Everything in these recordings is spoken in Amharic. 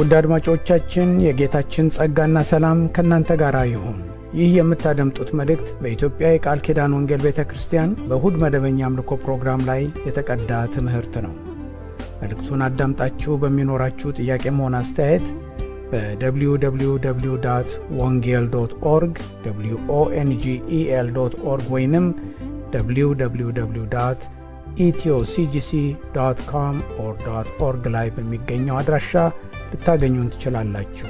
ውድ አድማጮቻችን የጌታችን ጸጋና ሰላም ከናንተ ጋር ይሁን። ይህ የምታደምጡት መልእክት በኢትዮጵያ የቃል ኪዳን ወንጌል ቤተክርስቲያን በእሁድ መደበኛ አምልኮ ፕሮግራም ላይ የተቀዳ ትምህርት ነው። መልእክቱን አዳምጣችሁ በሚኖራችሁ ጥያቄም ሆነ አስተያየት በwww.wongel.org wongel.org ወይንም www.ethioCGC.com/org ላይ በሚገኘው አድራሻ ልታገኙን ትችላላችሁ።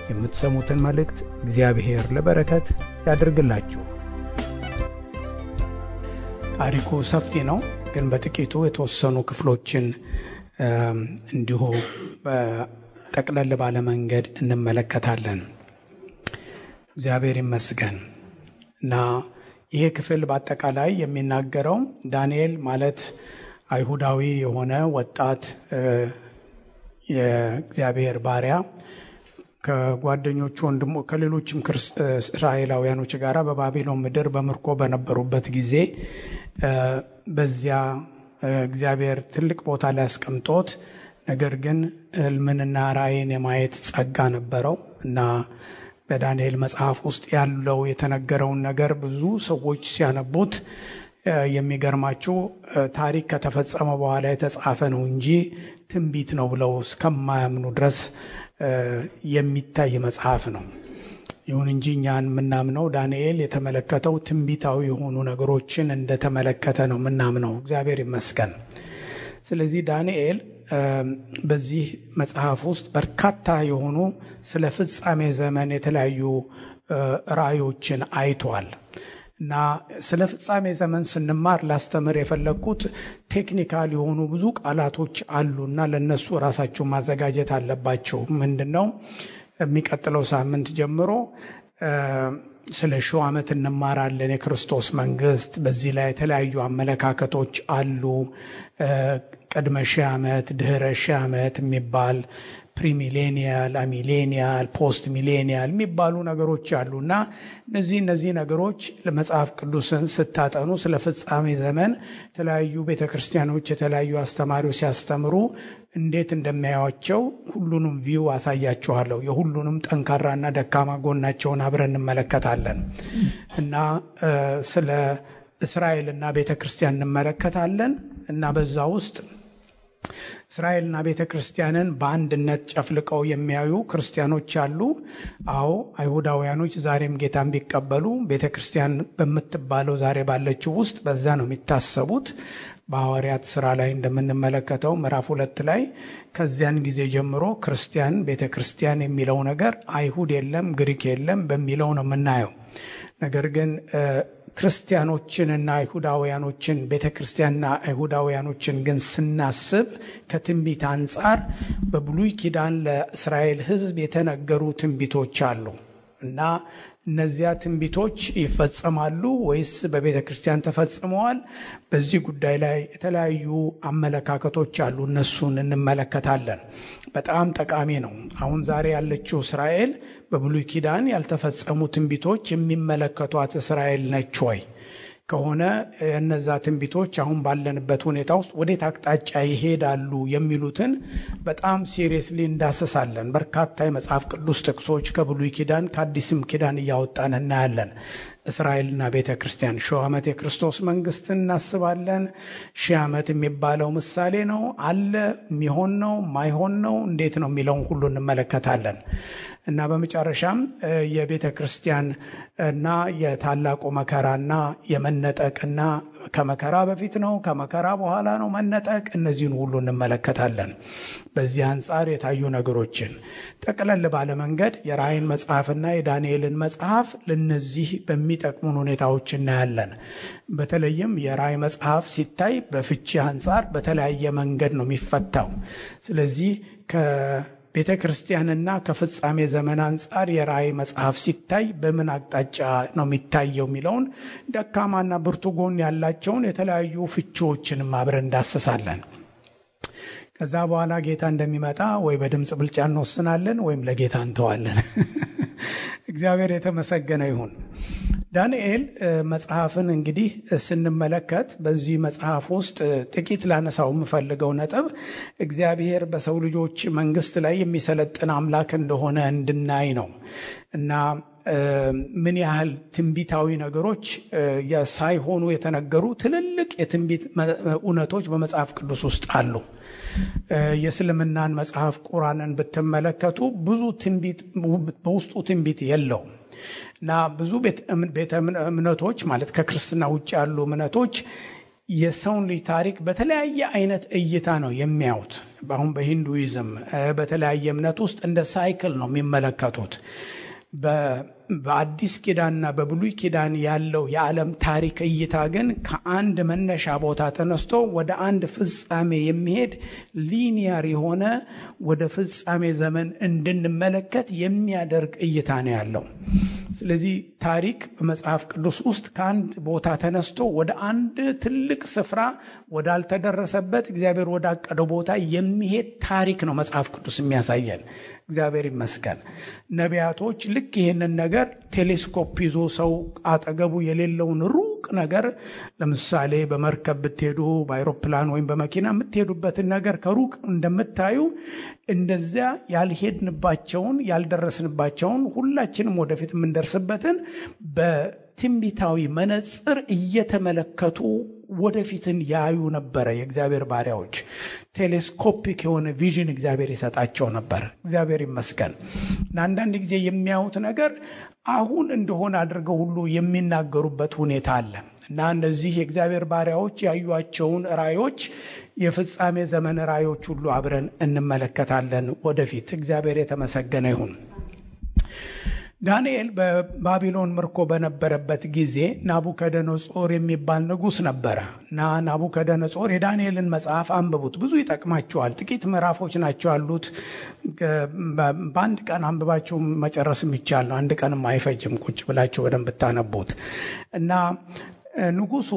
የምትሰሙትን መልእክት እግዚአብሔር ለበረከት ያድርግላችሁ። ታሪኩ ሰፊ ነው፣ ግን በጥቂቱ የተወሰኑ ክፍሎችን እንዲሁ በጠቅለል ባለ መንገድ እንመለከታለን። እግዚአብሔር ይመስገን እና ይሄ ክፍል በአጠቃላይ የሚናገረው ዳንኤል ማለት አይሁዳዊ የሆነ ወጣት የእግዚአብሔር ባሪያ ከጓደኞቹ ወንድሙ ከሌሎችም እስራኤላውያኖች ጋር በባቢሎን ምድር በምርኮ በነበሩበት ጊዜ በዚያ እግዚአብሔር ትልቅ ቦታ ላይ አስቀምጦት፣ ነገር ግን ሕልምንና ራእይን የማየት ጸጋ ነበረው እና በዳንኤል መጽሐፍ ውስጥ ያለው የተነገረውን ነገር ብዙ ሰዎች ሲያነቡት የሚገርማቸው ታሪክ ከተፈጸመ በኋላ የተጻፈ ነው እንጂ ትንቢት ነው ብለው እስከማያምኑ ድረስ የሚታይ መጽሐፍ ነው። ይሁን እንጂ እኛን የምናምነው ዳንኤል የተመለከተው ትንቢታዊ የሆኑ ነገሮችን እንደተመለከተ ነው የምናምነው። እግዚአብሔር ይመስገን። ስለዚህ ዳንኤል በዚህ መጽሐፍ ውስጥ በርካታ የሆኑ ስለ ፍጻሜ ዘመን የተለያዩ ራእዮችን አይቷል እና ስለ ፍጻሜ ዘመን ስንማር ላስተምር የፈለኩት ቴክኒካል የሆኑ ብዙ ቃላቶች አሉና ለነሱ ራሳቸው ማዘጋጀት አለባቸው። ምንድነው የሚቀጥለው ሳምንት ጀምሮ ስለ 1000 ዓመት እንማራለን። የክርስቶስ መንግስት በዚህ ላይ የተለያዩ አመለካከቶች አሉ። ቅድመ 1000 ዓመት፣ ድህረ 1000 ዓመት የሚባል ፕሪሚሌኒያል፣ አሚሌኒያል፣ ፖስት ሚሌኒያል የሚባሉ ነገሮች አሉና እነዚህ ነገሮች ለመጽሐፍ ቅዱስን ስታጠኑ ስለ ፍጻሜ ዘመን የተለያዩ ቤተክርስቲያኖች የተለያዩ አስተማሪዎች ሲያስተምሩ እንዴት እንደሚያዩአቸው ሁሉንም ቪው አሳያችኋለሁ። የሁሉንም ጠንካራና ደካማ ጎናቸውን አብረን እንመለከታለን እና ስለ እስራኤልና ቤተክርስቲያን እንመለከታለን እና በዛ ውስጥ እስራኤልና ቤተክርስቲያንን በአንድነት ጨፍልቀው የሚያዩ ክርስቲያኖች አሉ። አዎ አይሁዳውያኖች ዛሬም ጌታን ቢቀበሉ ቤተክርስቲያን በምትባለው ዛሬ ባለችው ውስጥ በዛ ነው የሚታሰቡት። በሐዋርያት ሥራ ላይ እንደምንመለከተው ምዕራፍ 2 ላይ ከዚያን ጊዜ ጀምሮ ክርስቲያን ቤተክርስቲያን የሚለው ነገር አይሁድ የለም ግሪክ የለም በሚለው ነው የምናየው። ነገር ግን ክርስቲያኖችንና አይሁዳውያኖችን ቤተክርስቲያንና አይሁዳውያኖችን ግን ስናስብ ከትንቢት አንጻር በብሉይ ኪዳን ለእስራኤል ሕዝብ የተነገሩ ትንቢቶች አሉ እና እነዚያ ትንቢቶች ይፈጸማሉ ወይስ በቤተክርስቲያን ተፈጽመዋል? በዚህ ጉዳይ ላይ የተለያዩ አመለካከቶች አሉ። እነሱን እንመለከታለን። በጣም ጠቃሚ ነው። አሁን ዛሬ ያለችው እስራኤል በብሉይ ኪዳን ያልተፈጸሙ ትንቢቶች የሚመለከቷት እስራኤል ነች ወይ? ከሆነ እነዛ ትንቢቶች አሁን ባለንበት ሁኔታ ውስጥ ወዴት አቅጣጫ ይሄዳሉ የሚሉትን በጣም ሲሪየስሊ እንዳሰሳለን። በርካታ የመጽሐፍ ቅዱስ ጥቅሶች ከብሉይ ኪዳን ከአዲስም ኪዳን እያወጣን እናያለን። እስራኤልና ቤተክርስቲያን 1000 ዓመት የክርስቶስ መንግስት እናስባለን። 1000 ዓመት የሚባለው ምሳሌ ነው አለ የሚሆን ነው ማይሆን ነው እንዴት ነው የሚለውን ሁሉ እንመለከታለን እና በመጨረሻም የቤተክርስቲያን እና የታላቁ መከራና የመነጠቅና ከመከራ በፊት ነው ከመከራ በኋላ ነው መነጠቅ፣ እነዚህን ሁሉ እንመለከታለን። በዚህ አንጻር የታዩ ነገሮችን ጠቅለል ባለ መንገድ የራእይን መጽሐፍና የዳንኤልን መጽሐፍ ለነዚህ በሚጠቅሙን ሁኔታዎች እናያለን። በተለይም የራእይ መጽሐፍ ሲታይ በፍቺ አንጻር በተለያየ መንገድ ነው የሚፈታው። ስለዚህ ቤተ ክርስቲያንና ከፍጻሜ ዘመን አንጻር የራእይ መጽሐፍ ሲታይ በምን አቅጣጫ ነው የሚታየው የሚለውን ደካማና ብርቱ ጎን ያላቸውን የተለያዩ ፍቺዎችንም አብረን እንዳሰሳለን። ከዛ በኋላ ጌታ እንደሚመጣ ወይ በድምጽ ብልጫ እንወስናለን ወይም ለጌታ እንተዋለን። እግዚአብሔር የተመሰገነ ይሁን ዳንኤል መጽሐፍን እንግዲህ ስንመለከት በዚህ መጽሐፍ ውስጥ ጥቂት ላነሳው የምፈልገው ነጥብ እግዚአብሔር በሰው ልጆች መንግስት ላይ የሚሰለጥን አምላክ እንደሆነ እንድናይ ነው እና ምን ያህል ትንቢታዊ ነገሮች ሳይሆኑ የተነገሩ ትልልቅ የትንቢት እውነቶች በመጽሐፍ ቅዱስ ውስጥ አሉ። የእስልምናን መጽሐፍ ቁርአንን ብትመለከቱ ብዙ ትንቢት በውስጡ ትንቢት የለውም እና ብዙ ቤተ እምነቶች ማለት ከክርስትና ውጭ ያሉ እምነቶች የሰውን ልጅ ታሪክ በተለያየ አይነት እይታ ነው የሚያዩት። አሁን በሂንዱይዝም በተለያየ እምነት ውስጥ እንደ ሳይክል ነው የሚመለከቱት። በአዲስ ኪዳንና በብሉይ ኪዳን ያለው የዓለም ታሪክ እይታ ግን ከአንድ መነሻ ቦታ ተነስቶ ወደ አንድ ፍጻሜ የሚሄድ ሊኒየር የሆነ ወደ ፍጻሜ ዘመን እንድንመለከት የሚያደርግ እይታ ነው ያለው። ስለዚህ ታሪክ በመጽሐፍ ቅዱስ ውስጥ ከአንድ ቦታ ተነስቶ ወደ አንድ ትልቅ ስፍራ ወዳልተደረሰበት እግዚአብሔር ወዳቀደው ቦታ የሚሄድ ታሪክ ነው መጽሐፍ ቅዱስ የሚያሳየን። እግዚአብሔር ይመስገን። ነቢያቶች ልክ ይህንን ነገር ቴሌስኮፕ ይዞ ሰው አጠገቡ የሌለውን ሩቅ ነገር ለምሳሌ በመርከብ ብትሄዱ በአይሮፕላን ወይም በመኪና የምትሄዱበትን ነገር ከሩቅ እንደምታዩ እንደዚያ ያልሄድንባቸውን ያልደረስንባቸውን ሁላችንም ወደፊት የምንደርስበትን በትንቢታዊ መነጽር እየተመለከቱ ወደፊትን ያዩ ነበረ። የእግዚአብሔር ባሪያዎች ቴሌስኮፒክ የሆነ ቪዥን እግዚአብሔር ይሰጣቸው ነበር። እግዚአብሔር ይመስገን። አንዳንድ ጊዜ የሚያዩት ነገር አሁን እንደሆነ አድርገው ሁሉ የሚናገሩበት ሁኔታ አለ እና እነዚህ የእግዚአብሔር ባሪያዎች ያዩአቸውን ራእዮች የፍጻሜ ዘመን ራእዮች ሁሉ አብረን እንመለከታለን ወደፊት። እግዚአብሔር የተመሰገነ ይሁን። ዳንኤል በባቢሎን ምርኮ በነበረበት ጊዜ ናቡከደነጾር የሚባል ንጉስ ነበረ እና ናቡከደነጾር የዳንኤልን መጽሐፍ አንብቡት፣ ብዙ ይጠቅማችኋል። ጥቂት ምዕራፎች ናቸው ያሉት። በአንድ ቀን አንብባችሁ መጨረስ የሚቻል ነው። አንድ ቀንም አይፈጅም ቁጭ ብላችሁ በደንብ ብታነቡት። እና ንጉሱ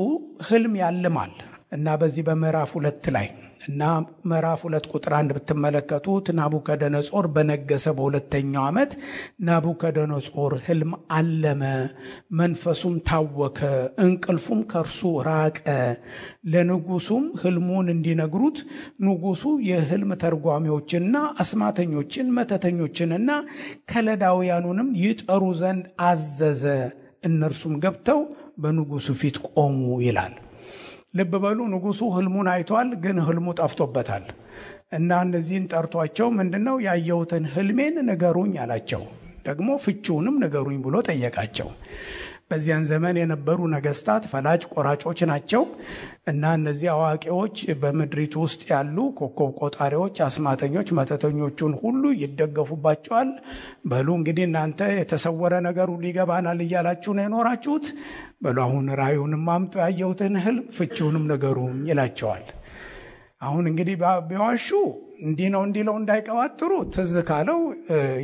ህልም ያልማል እና በዚህ በምዕራፍ 2 ላይ እና ምዕራፍ 2 ቁጥር 1 ብትመለከቱት ናቡከደነጾር በነገሰ በሁለተኛው ዓመት ናቡከደነጾር ህልም አለመ፣ መንፈሱም ታወከ፣ እንቅልፉም ከርሱ ራቀ። ለንጉሱም ህልሙን እንዲነግሩት ንጉሱ የህልም ተርጓሚዎችንና አስማተኞችን መተተኞችንና ከለዳውያኑንም ይጠሩ ዘንድ አዘዘ። እነርሱም ገብተው በንጉሱ ፊት ቆሙ ይላል። ልብ በሉ፣ ንጉሱ ህልሙን አይቷል፣ ግን ህልሙ ጠፍቶበታል እና እነዚህን ጠርቷቸው ምንድነው ያየሁትን ህልሜን ንገሩኝ አላቸው። ደግሞ ፍቺውንም ንገሩኝ ብሎ ጠየቃቸው። በዚያን ዘመን የነበሩ ነገስታት ፈላጭ ቆራጮች ናቸው እና እነዚህ አዋቂዎች በምድሪቱ ውስጥ ያሉ ኮከብ ቆጣሪዎች፣ አስማተኞች፣ መተተኞቹን ሁሉ ይደገፉባቸዋል። በሉ እንግዲህ እናንተ የተሰወረ ነገር ሁሉ ይገባናል እያላችሁ ነው የኖራችሁት። በሉ አሁን ራእዩንም አምጡ፣ ያየሁትን ህልም ፍቺውንም ንገሩኝ ይላቸዋል። አሁን እንግዲህ ቢዋሹ እንዲህ ነው እንዲለው እንዳይቀባጥሩ ትዝ ካለው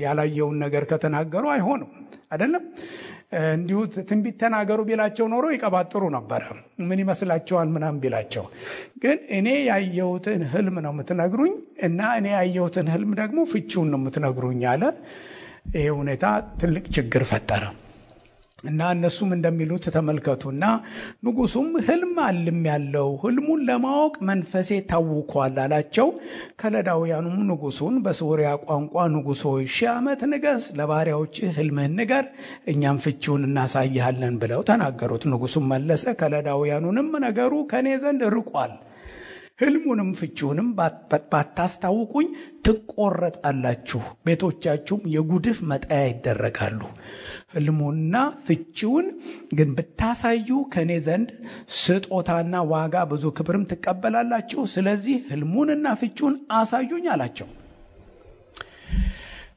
ያላየውን ነገር ከተናገሩ አይሆንም አይደለም። እንዲሁ ትንቢት ተናገሩ ቢላቸው ኖሮ ይቀባጥሩ ነበር። ምን ይመስላችኋል ምናምን ቢላቸው፣ ግን እኔ ያየሁትን ህልም ነው የምትነግሩኝ እና እኔ ያየሁትን ህልም ደግሞ ፍቺውን ነው የምትነግሩኝ አለ። ይሄ ሁኔታ ትልቅ ችግር ፈጠረ እና እነሱም እንደሚሉት ተመልከቱና ንጉሱም ህልም አልም ያለው ህልሙን ለማወቅ መንፈሴ ታውኳል አላቸው። ከለዳውያኑም ንጉሱን በሶርያ ቋንቋ ንጉሥ ሆይ 1000 ዓመት ንገስ፣ ለባሪያዎች ህልምህን ንገር፣ እኛም ፍቺውን እናሳይሃለን ብለው ተናገሩት። ንጉሱም መለሰ፣ ከለዳውያኑንም ነገሩ ከኔ ዘንድ ርቋል፣ ህልሙንም ፍቺውንም ባታስታውቁኝ ትቆረጣላችሁ፣ ቤቶቻችሁም የጉድፍ መጣያ ይደረጋሉ። ህልሙና ፍቺውን ግን ብታሳዩ ከኔ ዘንድ ስጦታና ዋጋ ብዙ ክብርም ትቀበላላችሁ። ስለዚህ ህልሙንና ፍቺውን አሳዩኝ አላቸው።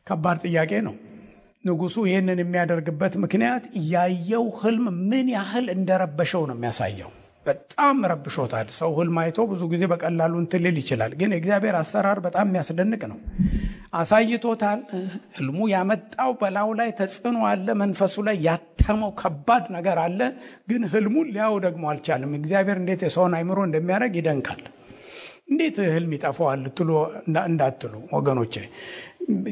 ከባድ ጥያቄ ነው። ንጉሱ ይህንን የሚያደርግበት ምክንያት ያየው ህልም ምን ያህል እንደረበሸው ነው የሚያሳየው። በጣም ረብሾታል። ሰው ህልም አይቶ ብዙ ጊዜ በቀላሉ እንትልል ይችላል፣ ግን እግዚአብሔር አሰራር በጣም የሚያስደንቅ ነው። አሳይቶታል። ህልሙ ያመጣው በላዩ ላይ ተጽዕኖ አለ፣ መንፈሱ ላይ ያተመው ከባድ ነገር አለ፣ ግን ህልሙን ሊያው ደግሞ አልቻለም። እግዚአብሔር እንዴት የሰውን አይምሮ እንደሚያደርግ ይደንቃል። እንዴት ህልም ይጠፋዋል ትሉ እንዳትሉ ወገኖቼ፣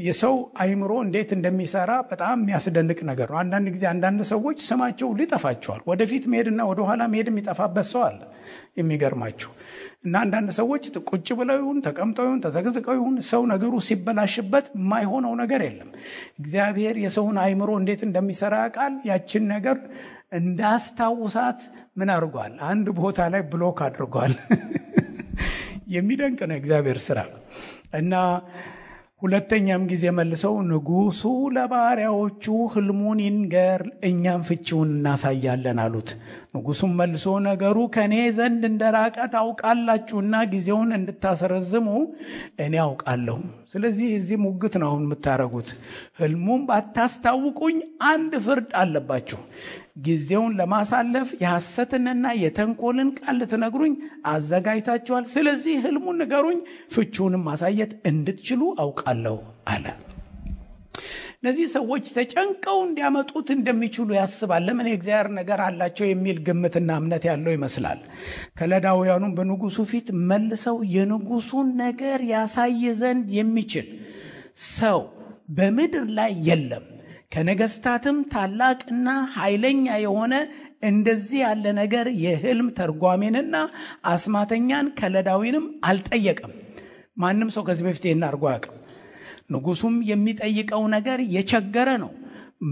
የሰው አይምሮ እንዴት እንደሚሰራ በጣም የሚያስደንቅ ነገር ነው። አንዳንድ ጊዜ አንዳንድ ሰዎች ስማቸው ሊጠፋቸዋል። ወደፊት መሄድና ወደ ኋላ መሄድ የሚጠፋበት ሰው አለ። የሚገርማችሁ እና አንዳንድ ሰዎች ቁጭ ብለው ይሁን ተቀምጠው ይሁን ተዘግዝቀው ይሁን ሰው ነገሩ ሲበላሽበት የማይሆነው ነገር የለም። እግዚአብሔር የሰውን አይምሮ እንዴት እንደሚሰራ ያውቃል። ያችን ነገር እንዳስታውሳት ምን አድርጓል? አንድ ቦታ ላይ ብሎክ አድርጓል። የሚደንቅ ነው እግዚአብሔር ስራ። እና ሁለተኛም ጊዜ መልሰው ንጉሱ ለባሪያዎቹ ህልሙን ይንገር፣ እኛም ፍቺውን እናሳያለን አሉት። ንጉሱም መልሶ ነገሩ ከኔ ዘንድ እንደራቀ ታውቃላችሁና ጊዜውን እንድታስረዝሙ እኔ አውቃለሁ። ስለዚህ እዚህ ሙግት ነው አሁን የምታረጉት። ህልሙን ባታስታውቁኝ አንድ ፍርድ አለባችሁ። ጊዜውን ለማሳለፍ የሐሰትንና የተንኮልን ቃል ልትነግሩኝ አዘጋጅታችኋል። ስለዚህ ህልሙን ንገሩኝ፣ ፍቺውንም ማሳየት እንድትችሉ አውቃለሁ አለ። እነዚህ ሰዎች ተጨንቀው እንዲያመጡት እንደሚችሉ ያስባል። ለምን የእግዚአብሔር ነገር አላቸው የሚል ግምትና እምነት ያለው ይመስላል። ከለዳውያኑም በንጉሱ ፊት መልሰው የንጉሱን ነገር ያሳይ ዘንድ የሚችል ሰው በምድር ላይ የለም፣ ከነገስታትም ታላቅና ኃይለኛ የሆነ እንደዚህ ያለ ነገር የህልም ተርጓሚንና አስማተኛን ከለዳዊንም አልጠየቀም። ማንም ሰው ከዚህ በፊት ይህን አድርጎ አያውቅም። ንጉሱም የሚጠይቀው ነገር የቸገረ ነው።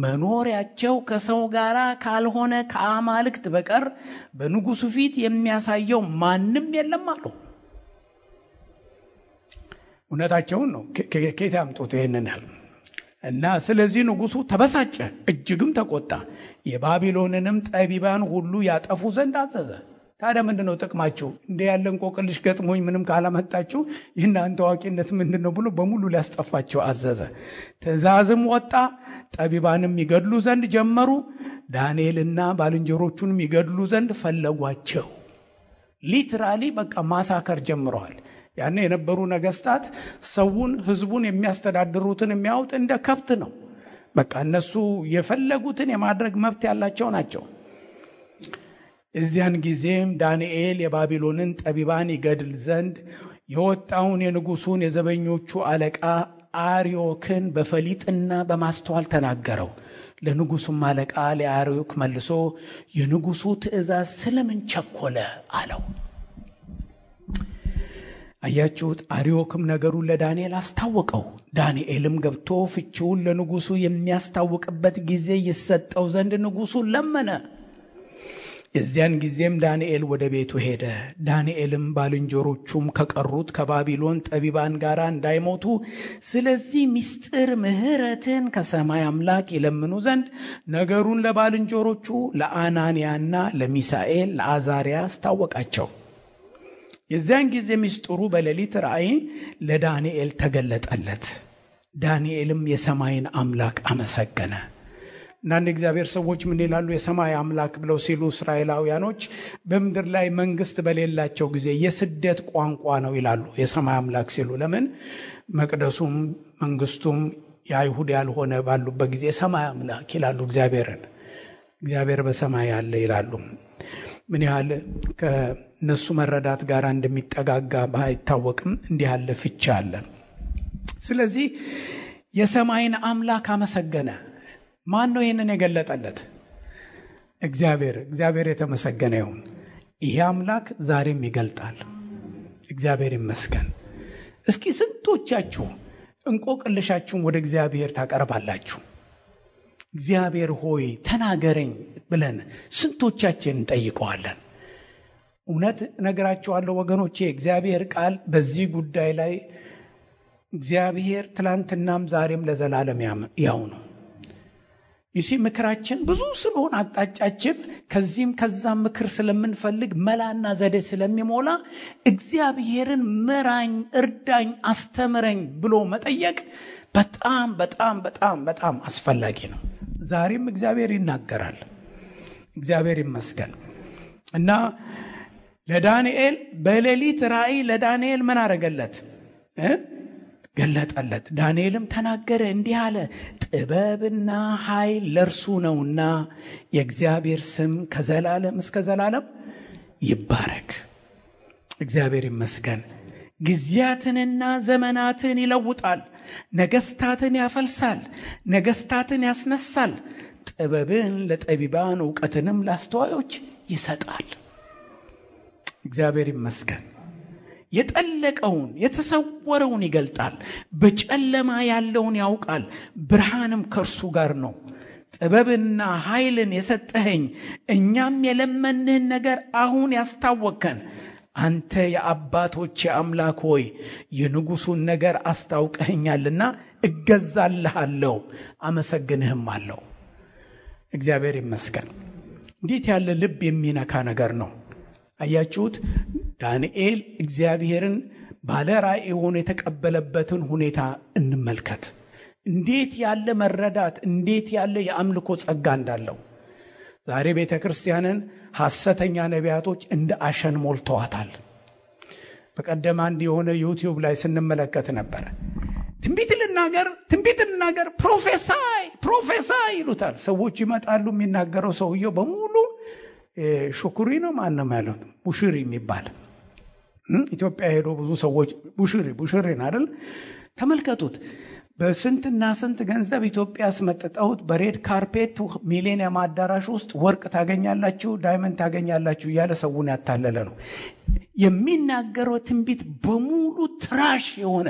መኖሪያቸው ከሰው ጋር ካልሆነ ከአማልክት በቀር በንጉሱ ፊት የሚያሳየው ማንም የለም አሉ። እውነታቸውን ነው። ከየት ያምጡት ይሄንን ያህል? እና ስለዚህ ንጉሱ ተበሳጨ፣ እጅግም ተቆጣ። የባቢሎንንም ጠቢባን ሁሉ ያጠፉ ዘንድ አዘዘ። ታዲያ ምንድነው ጥቅማችሁ? እንደ ያለ እንቆቅልሽ ገጥሞኝ ምንም ካላመጣችሁ የእናንተ አዋቂነት ምንድነው ብሎ በሙሉ ሊያስጠፋቸው አዘዘ። ትእዛዝም ወጣ። ጠቢባንም ይገድሉ ዘንድ ጀመሩ። ዳንኤልና ባልንጀሮቹንም ይገድሉ ዘንድ ፈለጓቸው። ሊትራሊ በቃ ማሳከር ጀምረዋል። ያኔ የነበሩ ነገስታት ሰውን ህዝቡን የሚያስተዳድሩትን የሚያውጥ እንደ ከብት ነው። በቃ እነሱ የፈለጉትን የማድረግ መብት ያላቸው ናቸው። እዚያን ጊዜም ዳንኤል የባቢሎንን ጠቢባን ይገድል ዘንድ የወጣውን የንጉሱን የዘበኞቹ አለቃ አርዮክን በፈሊጥና በማስተዋል ተናገረው። ለንጉሱም አለቃ ለአርዮክ መልሶ የንጉሱ ትእዛዝ ስለምን ቸኮለ አለው። አያችሁት? አርዮክም ነገሩን ለዳንኤል አስታወቀው። ዳንኤልም ገብቶ ፍቺውን ለንጉሱ የሚያስታውቅበት ጊዜ ይሰጠው ዘንድ ንጉሱን ለመነ። የዚያን ጊዜም ዳንኤል ወደ ቤቱ ሄደ። ዳንኤልም ባልንጀሮቹም ከቀሩት ከባቢሎን ጠቢባን ጋር እንዳይሞቱ ስለዚህ ምስጢር ምሕረትን ከሰማይ አምላክ ይለምኑ ዘንድ ነገሩን ለባልንጀሮቹ ለአናንያና ለሚሳኤል ለአዛሪያ አስታወቃቸው። የዚያን ጊዜ ምስጢሩ በሌሊት ራእይ ለዳንኤል ተገለጠለት። ዳንኤልም የሰማይን አምላክ አመሰገነ። እናንተ እግዚአብሔር ሰዎች ምን ይላሉ? የሰማይ አምላክ ብለው ሲሉ እስራኤላውያኖች በምድር ላይ መንግስት በሌላቸው ጊዜ የስደት ቋንቋ ነው ይላሉ የሰማይ አምላክ ሲሉ። ለምን? መቅደሱም መንግስቱም የአይሁድ ያልሆነ ባሉበት ጊዜ የሰማይ አምላክ ይላሉ እግዚአብሔርን። እግዚአብሔር በሰማይ ያለ ይላሉ። ምን ያህል ከነሱ መረዳት ጋር እንደሚጠጋጋ ባይታወቅም እንዲህ ያለ ፍቺ አለ። ስለዚህ የሰማይን አምላክ አመሰገነ። ማን ነው ይህንን የገለጠለት? እግዚአብሔር የተመሰገነ ይሁን። ይሄ አምላክ ዛሬም ይገልጣል። እግዚአብሔር ይመስገን። እስኪ ስንቶቻችሁ እንቆቅልሻችሁን ወደ እግዚአብሔር ታቀርባላችሁ? እግዚአብሔር ሆይ ተናገረኝ ብለን ስንቶቻችን እንጠይቀዋለን? እውነት ነገራችኋለሁ ወገኖቼ፣ እግዚአብሔር ቃል በዚህ ጉዳይ ላይ እግዚአብሔር ትላንትናም ዛሬም ለዘላለም ያው ነው። ይሲ ምክራችን ብዙ ስለሆነ አቅጣጫችን ከዚህም ከዛም ምክር ስለምንፈልግ መላና ዘዴ ስለሚሞላ እግዚአብሔርን ምራኝ፣ እርዳኝ፣ አስተምረኝ ብሎ መጠየቅ በጣም በጣም በጣም በጣም አስፈላጊ ነው። ዛሬም እግዚአብሔር ይናገራል። እግዚአብሔር ይመስገን። እና ለዳንኤል በሌሊት ራእይ ለዳንኤል ምን አረገለት? ገለጠለት። ዳንኤልም ተናገረ እንዲህ አለ፣ ጥበብና ኃይል ለእርሱ ነውና የእግዚአብሔር ስም ከዘላለም እስከ ዘላለም ይባረክ። እግዚአብሔር ይመስገን። ጊዜያትንና ዘመናትን ይለውጣል። ነገስታትን ያፈልሳል፣ ነገስታትን ያስነሳል። ጥበብን ለጠቢባን ዕውቀትንም ለአስተዋዮች ይሰጣል። እግዚአብሔር ይመስገን። የጠለቀውን የተሰወረውን ይገልጣል። በጨለማ ያለውን ያውቃል፣ ብርሃንም ከእርሱ ጋር ነው። ጥበብና ኃይልን የሰጠኸኝ፣ እኛም የለመንህን ነገር አሁን ያስታወከን። አንተ የአባቶቼ አምላክ ሆይ የንጉሱን ነገር አስታውቀኸኛልና እገዛልሃለሁ፣ አመሰግንህም አለው። እግዚአብሔር ይመስገን። እንዴት ያለ ልብ የሚነካ ነገር ነው! አያችሁት? ዳንኤል እግዚአብሔርን ባለ ራእይ ሆኖ የተቀበለበትን ሁኔታ እንመልከት። እንዴት ያለ መረዳት፣ እንዴት ያለ የአምልኮ ጸጋ እንዳለው። ዛሬ ቤተ ክርስቲያንን ሐሰተኛ ነቢያቶች እንደ አሸን ሞልተዋታል። በቀደም አንድ የሆነ ዩቲዩብ ላይ ስንመለከት ነበር። ትንቢት ልናገር ፕሮፌሳይ ይሉታል ሰዎች። ይመጣሉ። የሚናገረው ሰውየው በሙሉ ሹኩሪ ነው ማንም ያለው ቡሽሪ የሚባል ኢትዮጵያ ሄዶ ብዙ ሰዎች ቡሽሪን አይደል? ተመልከቱት። በስንትና ስንት ገንዘብ ኢትዮጵያ አስመጥተውት በሬድ ካርፔት ሚሌኒየም አዳራሽ ውስጥ ወርቅ ታገኛላችሁ፣ ዳይመንድ ታገኛላችሁ እያለ ሰውን ያታለለ ነው። የሚናገረው ትንቢት በሙሉ ትራሽ የሆነ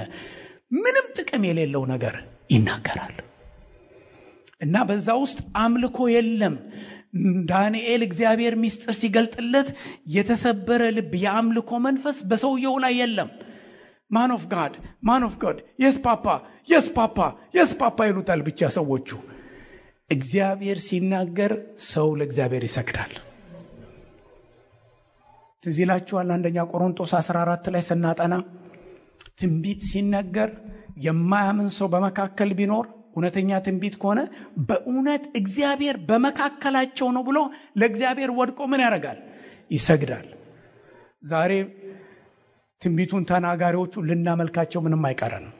ምንም ጥቅም የሌለው ነገር ይናገራል። እና በዛ ውስጥ አምልኮ የለም። ዳንኤል እግዚአብሔር ምስጢር ሲገልጥለት የተሰበረ ልብ፣ የአምልኮ መንፈስ በሰውየው ላይ የለም። ማን ኦፍ ጋድ የስ ፓፓ ይሉታል ብቻ ሰዎቹ። እግዚአብሔር ሲናገር ሰው ለእግዚአብሔር ይሰግዳል። ትዝ ይላችኋል አንደኛ ቆሮንቶስ 14 ላይ ስናጠና ትንቢት ሲነገር የማያምን ሰው በመካከል ቢኖር እውነተኛ ትንቢት ከሆነ በእውነት እግዚአብሔር በመካከላቸው ነው ብሎ ለእግዚአብሔር ወድቆ ምን ያደርጋል? ይሰግዳል። ዛሬ ትንቢቱን ተናጋሪዎቹ ልናመልካቸው ምንም አይቀረንም።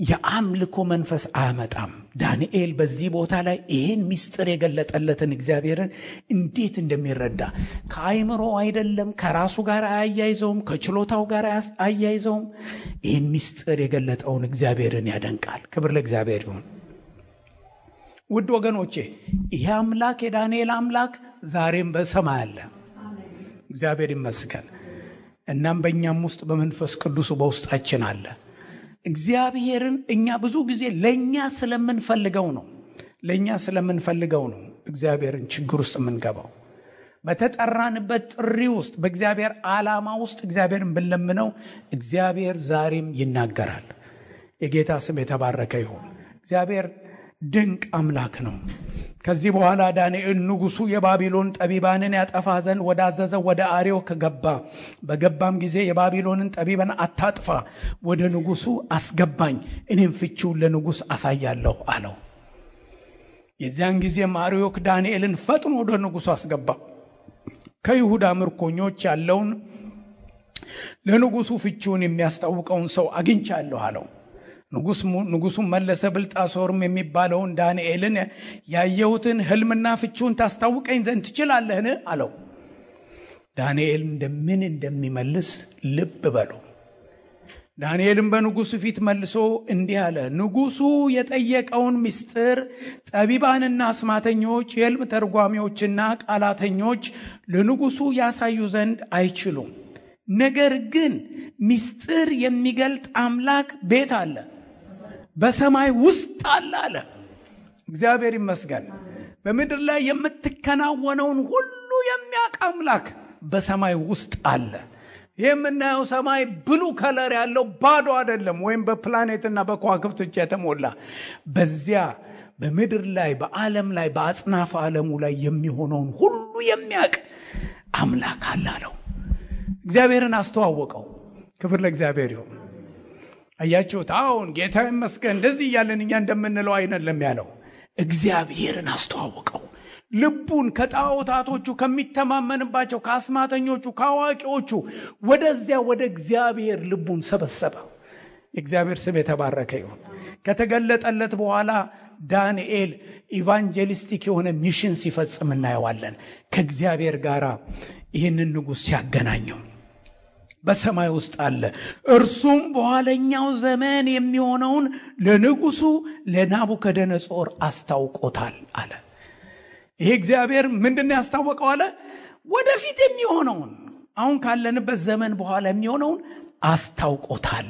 የአምልኮ መንፈስ አያመጣም። ዳንኤል በዚህ ቦታ ላይ ይህን ምስጢር የገለጠለትን እግዚአብሔርን እንዴት እንደሚረዳ ከአይምሮ አይደለም፣ ከራሱ ጋር አያይዘውም፣ ከችሎታው ጋር አያይዘውም። ይህን ምስጢር የገለጠውን እግዚአብሔርን ያደንቃል። ክብር ለእግዚአብሔር ይሁን። ውድ ወገኖቼ፣ ይህ አምላክ የዳንኤል አምላክ ዛሬም በሰማይ አለ። እግዚአብሔር ይመስገን። እናም በእኛም ውስጥ በመንፈስ ቅዱስ በውስጣችን አለ። እግዚአብሔርን እኛ ብዙ ጊዜ ለኛ ስለምንፈልገው ነው እግዚአብሔርን ችግር ውስጥ የምንገባው። በተጠራንበት ጥሪ ውስጥ በእግዚአብሔር ዓላማ ውስጥ እግዚአብሔርን ብንለምነው እግዚአብሔር ዛሬም ይናገራል። የጌታ ስም የተባረከ ይሁን። እግዚአብሔር ድንቅ አምላክ ነው። ከዚህ በኋላ ዳንኤል ንጉሱ የባቢሎን ጠቢባንን ያጠፋ ዘንድ ወዳዘዘው ወደ አርዮክ ገባ። በገባም ጊዜ የባቢሎንን ጠቢባን አታጥፋ፣ ወደ ንጉሱ አስገባኝ፣ እኔም ፍቺውን ለንጉስ አሳያለሁ አለው። የዚያን ጊዜም አርዮክ ዳንኤልን ፈጥኖ ወደ ንጉሱ አስገባ። ከይሁዳ ምርኮኞች ያለውን ለንጉሱ ፍቺውን የሚያስታውቀውን ሰው አግኝቻለሁ አለው። ንጉሱም መለሰ፣ ብልጣሶርም የሚባለውን ዳንኤልን ያየሁትን ህልምና ፍቺውን ታስታውቀኝ ዘንድ ትችላለህን አለው። ዳንኤል እንደምን እንደሚመልስ ልብ በሉ። ዳንኤልም በንጉሱ ፊት መልሶ እንዲህ አለ። ንጉሱ የጠየቀውን ምስጢር ጠቢባንና አስማተኞች፣ የህልም ተርጓሚዎችና ቃላተኞች ለንጉሱ ያሳዩ ዘንድ አይችሉም። ነገር ግን ምስጢር የሚገልጥ አምላክ ቤት አለ፣ በሰማይ ውስጥ አለ። እግዚአብሔር ይመስገን። በምድር ላይ የምትከናወነውን ሁሉ የሚያውቅ አምላክ በሰማይ ውስጥ አለ። የምናየው ሰማይ ብሉ ከለር ያለው ባዶ አይደለም፣ ወይም በፕላኔትና በከዋክብት የተሞላ። በዚያ በምድር ላይ በዓለም ላይ በአጽናፈ ዓለሙ ላይ የሚሆነውን ሁሉ የሚያውቅ አምላክ አለው። እግዚአብሔርን አስተዋወቀው። ክብር ለእግዚአብሔር ይሁን። አያችሁት? አሁን ጌታ ይመስገን እንደዚህ እያለን እኛ እንደምንለው አይደለም ያለው። እግዚአብሔርን አስተዋወቀው። ልቡን ከጣዖታቶቹ ከሚተማመንባቸው ከአስማተኞቹ ከአዋቂዎቹ ወደዚያ ወደ እግዚአብሔር ልቡን ሰበሰበ። የእግዚአብሔር ስም የተባረከ ይሁን። ከተገለጠለት በኋላ ዳንኤል ኢቫንጀሊስቲክ የሆነ ሚሽን ሲፈጽም እናየዋለን። ከእግዚአብሔር ጋር ይህንን ንጉሥ ሲያገናኘው በሰማይ ውስጥ አለ። እርሱም በኋለኛው ዘመን የሚሆነውን ለንጉሱ ለናቡከደነጾር አስታውቆታል አለ። ይሄ እግዚአብሔር ምንድነው ያስታወቀው አለ? ወደፊት የሚሆነውን አሁን ካለንበት ዘመን በኋላ የሚሆነውን አስታውቆታል።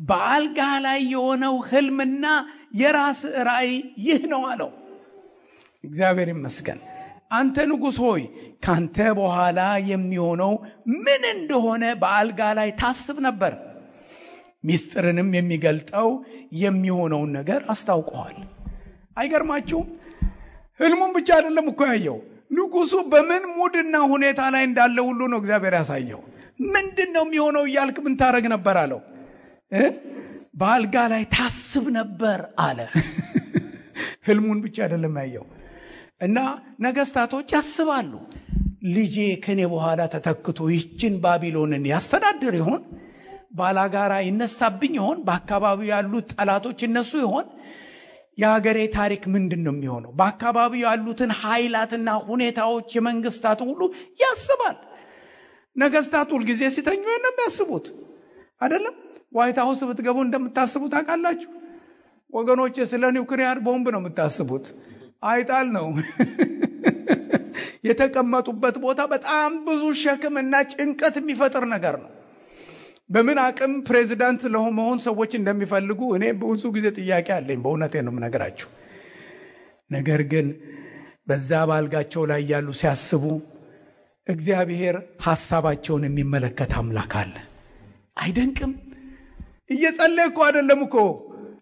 በአልጋ ላይ የሆነው ህልምና የራስ ራእይ ይህ ነው አለው። እግዚአብሔር ይመስገን። አንተ ንጉሥ ሆይ ካንተ በኋላ የሚሆነው ምን እንደሆነ በአልጋ ላይ ታስብ ነበር። ሚስጥርንም የሚገልጠው የሚሆነውን ነገር አስታውቀዋል። አይገርማችሁም? ህልሙን ብቻ አይደለም እኮ ያየው። ንጉሱ በምን ሙድና ሁኔታ ላይ እንዳለ ሁሉ ነው እግዚአብሔር ያሳየው። ምንድነው የሚሆነው እያልክ ምን ታረግ ነበር አለው? በአልጋ ላይ ታስብ ነበር አለ። ህልሙን ብቻ አይደለም ያየው። እና ነገስታቶች ያስባሉ፣ ልጄ ከኔ በኋላ ተተክቶ ይችን ባቢሎንን ያስተዳድር ይሆን? ባላጋራ ይነሳብኝ ይሆን? በአካባቢው ያሉት ጠላቶች እነሱ ይሆን? የሀገሬ ታሪክ ምንድነው የሚሆነው? በአካባቢው ያሉትን ኃይላትና ሁኔታዎች የመንግስታት ሁሉ ያስባል። ነገስታት ሁሉ ጊዜ ሲተኙ ነው የሚያስቡት አይደለም? ዋይት ሃውስ ብትገቡ እንደምታስቡት አቃላችሁ ወገኖች? ስለ ኒውክሊየር ቦምብ ነው የምታስቡት። አይጣል ነው የተቀመጡበት ቦታ በጣም ብዙ ሸክምና ጭንቀት የሚፈጥር ነገር ነው። በምን አቅም ፕሬዚዳንት ለመሆን ሰዎች እንደሚፈልጉ እኔ ብዙ ጊዜ ጥያቄ አለኝ። በእውነቴ ነው የምነግራችሁ። ነገር ግን በዛ ባልጋቸው ላይ ያሉ ሲያስቡ እግዚአብሔር ሐሳባቸውን የሚመለከት አምላክ አለ። አይደንቅም? እየጸለየ እኮ አይደለም እኮ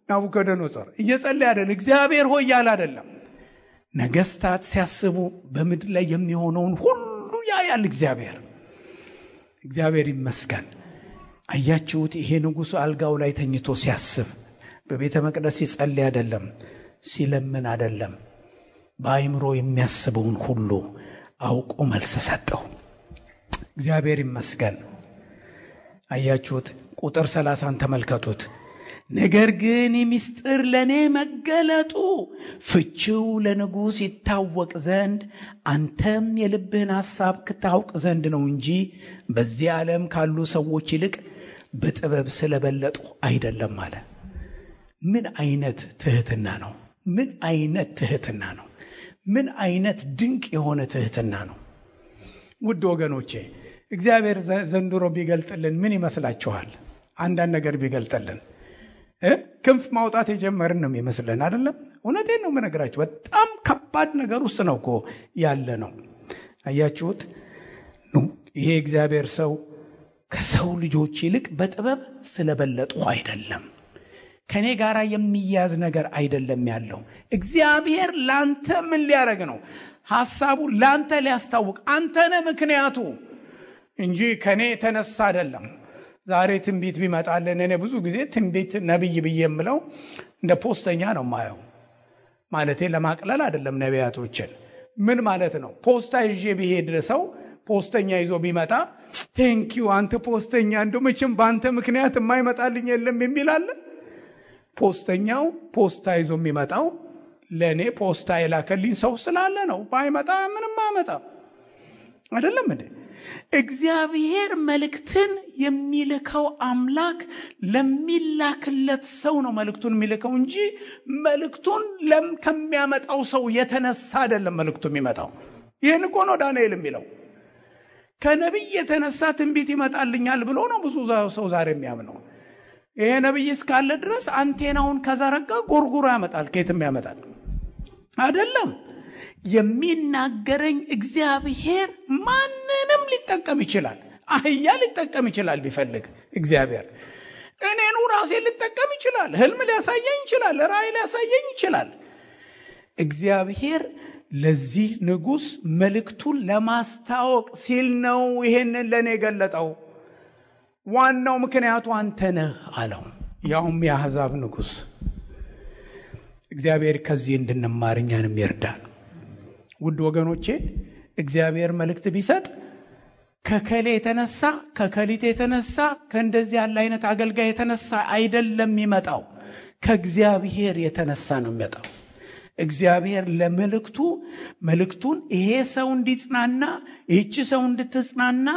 ናቡከደነጾር እየጸለየ አይደለም። እግዚአብሔር ሆይ ያለ አይደለም። ነገስታት ሲያስቡ በምድር ላይ የሚሆነውን ሁሉ ያያል እግዚአብሔር። እግዚአብሔር ይመስገን። አያችሁት? ይሄ ንጉሥ አልጋው ላይ ተኝቶ ሲያስብ በቤተ መቅደስ ሲጸልይ አይደለም፣ ሲለምን አይደለም። በአይምሮ የሚያስበውን ሁሉ አውቆ መልስ ሰጠው። እግዚአብሔር ይመስገን። አያችሁት? ቁጥር 30 ተመልከቱት። ነገር ግን ሚስጥር ለኔ መገለጡ ፍቺው ለንጉስ ይታወቅ ዘንድ አንተም የልብህን ሐሳብ ክታውቅ ዘንድ ነው እንጂ በዚህ ዓለም ካሉ ሰዎች ይልቅ በጥበብ ስለበለጡ አይደለም አለ። ምን አይነት ትህትና ነው! ምን አይነት ትህትና ነው! ምን አይነት ድንቅ የሆነ ትህትና ነው! ውድ ወገኖቼ እግዚአብሔር ዘንድሮ ቢገልጥልን ምን ይመስላችኋል? አንዳንድ ነገር ቢገልጥልን ክንፍ ማውጣት የጀመርን ነው የሚመስለን አይደለም? እውነቴን ነው የምነግራችሁ። በጣም ከባድ ነገር ውስጥ ነው እኮ ያለ ነው። አያችሁት? ይሄ እግዚአብሔር ሰው ከሰው ልጆች ይልቅ በጥበብ ስለበለጡ አይደለም፣ ከኔ ጋር የሚያዝ ነገር አይደለም ያለው። እግዚአብሔር ላንተ ምን ሊያረግ ነው? ሐሳቡ ላንተ ሊያስታውቅ አንተ ነህ ምክንያቱ እንጂ ከኔ ተነሳ አይደለም። ዛሬ ትንቢት ቢመጣልን እኔ ብዙ ጊዜ ትንቢት ነብይ ብዬ የምለው እንደ ፖስተኛ ነው ማየው። ማለቴ ለማቅለል አይደለም ነቢያቶችን። ምን ማለት ነው? ፖስታ ይዤ ቢሄድ ሰው ፖስተኛ ይዞ ቢመጣ ቴንኪው አንተ ፖስተኛ፣ እንደው መቼም በአንተ ምክንያት የማይመጣልኝ የለም የሚል አለ? ፖስተኛው ፖስታ ይዞ የሚመጣው ለኔ ፖስታ የላከልኝ ሰው ስላለ ነው። ባይመጣ ምንም አመጣ አይደለም እንዴ? እግዚአብሔር መልእክትን የሚልከው አምላክ ለሚላክለት ሰው ነው መልእክቱን የሚልከው እንጂ መልእክቱን ከሚያመጣው ሰው የተነሳ አይደለም መልእክቱ የሚመጣው። ይሄን እኮ ነው ዳንኤል የሚለው። ከነብይ የተነሳ ትንቢት ይመጣልኛል ብሎ ነው ብዙ ሰው ዛሬ የሚያምነው። ይሄ ነብይ እስካለ ድረስ አንቴናውን ከዘረጋ ጎርጉሮ ያመጣል። ከየትም ያመጣል አይደለም። የሚናገረኝ እግዚአብሔር ማንንም ሊጠቀም ይችላል። አህያ ሊጠቀም ይችላል ቢፈልግ እግዚአብሔር። እኔኑ ራሴ ሊጠቀም ይችላል። ህልም ሊያሳየኝ ይችላል። ራእይ ሊያሳየኝ ይችላል። እግዚአብሔር ለዚህ ንጉስ መልእክቱን ለማስታወቅ ሲል ነው ይሄንን ለኔ ገለጠው። ዋናው ምክንያቱ አንተ ነህ አለው። ያውም የአሕዛብ ንጉስ። እግዚአብሔር ከዚህ እንድንማር እኛንም ይርዳን። ውድ ወገኖቼ እግዚአብሔር መልእክት ቢሰጥ ከከሌ የተነሳ ከከሊት የተነሳ ከእንደዚህ ያለ አይነት አገልጋይ የተነሳ አይደለም የሚመጣው፣ ከእግዚአብሔር የተነሳ ነው የሚመጣው። እግዚአብሔር መልእክቱን ይሄ ሰው እንዲጽናና፣ ይህች ሰው እንድትጽናና፣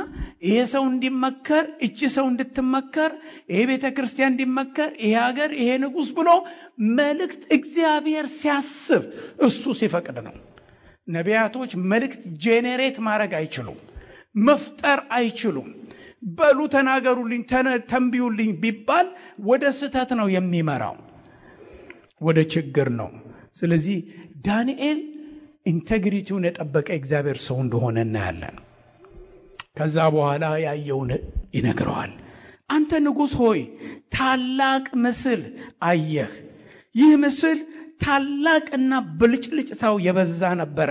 ይሄ ሰው እንዲመከር፣ ይህች ሰው እንድትመከር፣ ይሄ ቤተክርስቲያን እንዲመከር፣ ይሄ ሀገር፣ ይሄ ንጉሥ ብሎ መልእክት እግዚአብሔር ሲያስብ እሱ ሲፈቅድ ነው። ነቢያቶች መልእክት ጄኔሬት ማድረግ አይችሉም፣ መፍጠር አይችሉም። በሉ ተናገሩልኝ፣ ተንብዩልኝ ቢባል ወደ ስህተት ነው የሚመራው፣ ወደ ችግር ነው። ስለዚህ ዳንኤል ኢንቴግሪቲውን የጠበቀ እግዚአብሔር ሰው እንደሆነ እናያለን። ከዛ በኋላ ያየውን ይነግረዋል። አንተ ንጉሥ ሆይ ታላቅ ምስል አየህ። ይህ ምስል ታላቅና ብልጭልጭታው የበዛ ነበረ፣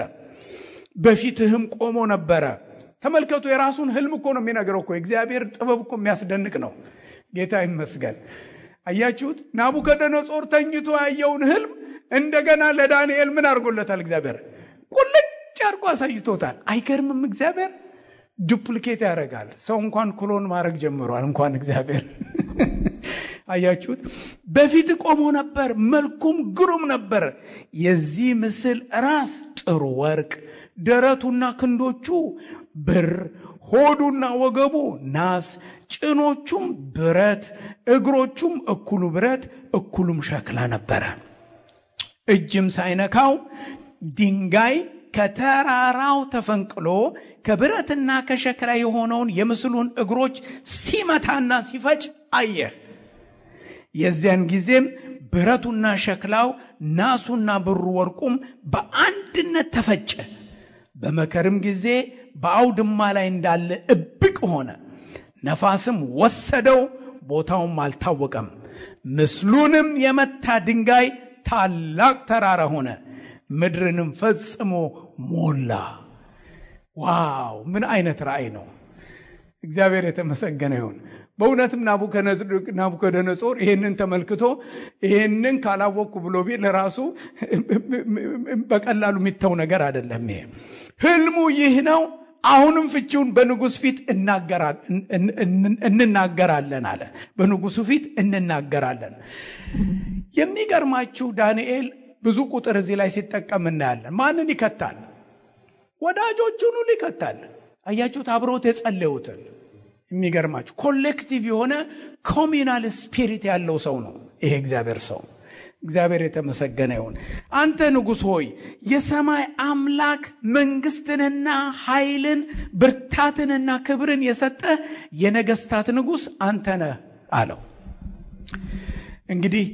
በፊትህም ቆሞ ነበረ። ተመልከቱ፣ የራሱን ህልም እኮ ነው የሚነግረው እኮ። እግዚአብሔር ጥበብ እኮ የሚያስደንቅ ነው። ጌታ ይመስገን። አያችሁት? ናቡከደነጾር ተኝቶ ያየውን ህልም እንደገና ለዳንኤል ምን አድርጎለታል? እግዚአብሔር ቁልጭ አድርጎ አሳይቶታል። አይገርምም? እግዚአብሔር ዱፕሊኬት ያደርጋል። ሰው እንኳን ክሎን ማድረግ ጀምሯል፣ እንኳን እግዚአብሔር። አያችሁት? በፊት ቆሞ ነበር፣ መልኩም ግሩም ነበር። የዚህ ምስል ራስ ጥሩ ወርቅ፣ ደረቱና ክንዶቹ ብር፣ ሆዱና ወገቡ ናስ፣ ጭኖቹም ብረት፣ እግሮቹም እኩሉ ብረት እኩሉም ሸክላ ነበረ። እጅም ሳይነካው ድንጋይ ከተራራው ተፈንቅሎ ከብረትና ከሸክላ የሆነውን የምስሉን እግሮች ሲመታና ሲፈጭ አየህ። የዚያን ጊዜም ብረቱና ሸክላው ናሱና ብሩ ወርቁም በአንድነት ተፈጨ። በመከርም ጊዜ በአውድማ ላይ እንዳለ እብቅ ሆነ። ነፋስም ወሰደው፣ ቦታውም አልታወቀም። ምስሉንም የመታ ድንጋይ ታላቅ ተራራ ሆነ፣ ምድርንም ፈጽሞ ሞላ። ዋው! ምን አይነት ራእይ ነው! እግዚአብሔር የተመሰገነ ይሁን። በእውነትም ናቡከደነጾር ይሄንን ተመልክቶ ይሄንን ካላወቅኩ ብሎ ቢል ለራሱ በቀላሉ የሚተው ነገር አይደለም። ይሄ ህልሙ ይህ ነው። አሁንም ፍቺውን በንጉሥ ፊት እንናገራለን አለ። በንጉሱ ፊት እንናገራለን። የሚገርማችሁ ዳንኤል ብዙ ቁጥር እዚህ ላይ ሲጠቀም እናያለን። ማንን ይከታል? ወዳጆቹን ሁሉ ይከታል። አያችሁት? አብሮት የጸለዩትን። የሚገርማችሁ ኮሌክቲቭ የሆነ ኮሚናል ስፒሪት ያለው ሰው ነው ይሄ እግዚአብሔር ሰው። እግዚአብሔር የተመሰገነ ይሁን። አንተ ንጉሥ ሆይ የሰማይ አምላክ መንግስትንና ኃይልን ብርታትንና ክብርን የሰጠ የነገስታት ንጉሥ አንተ ነህ አለው። እንግዲህ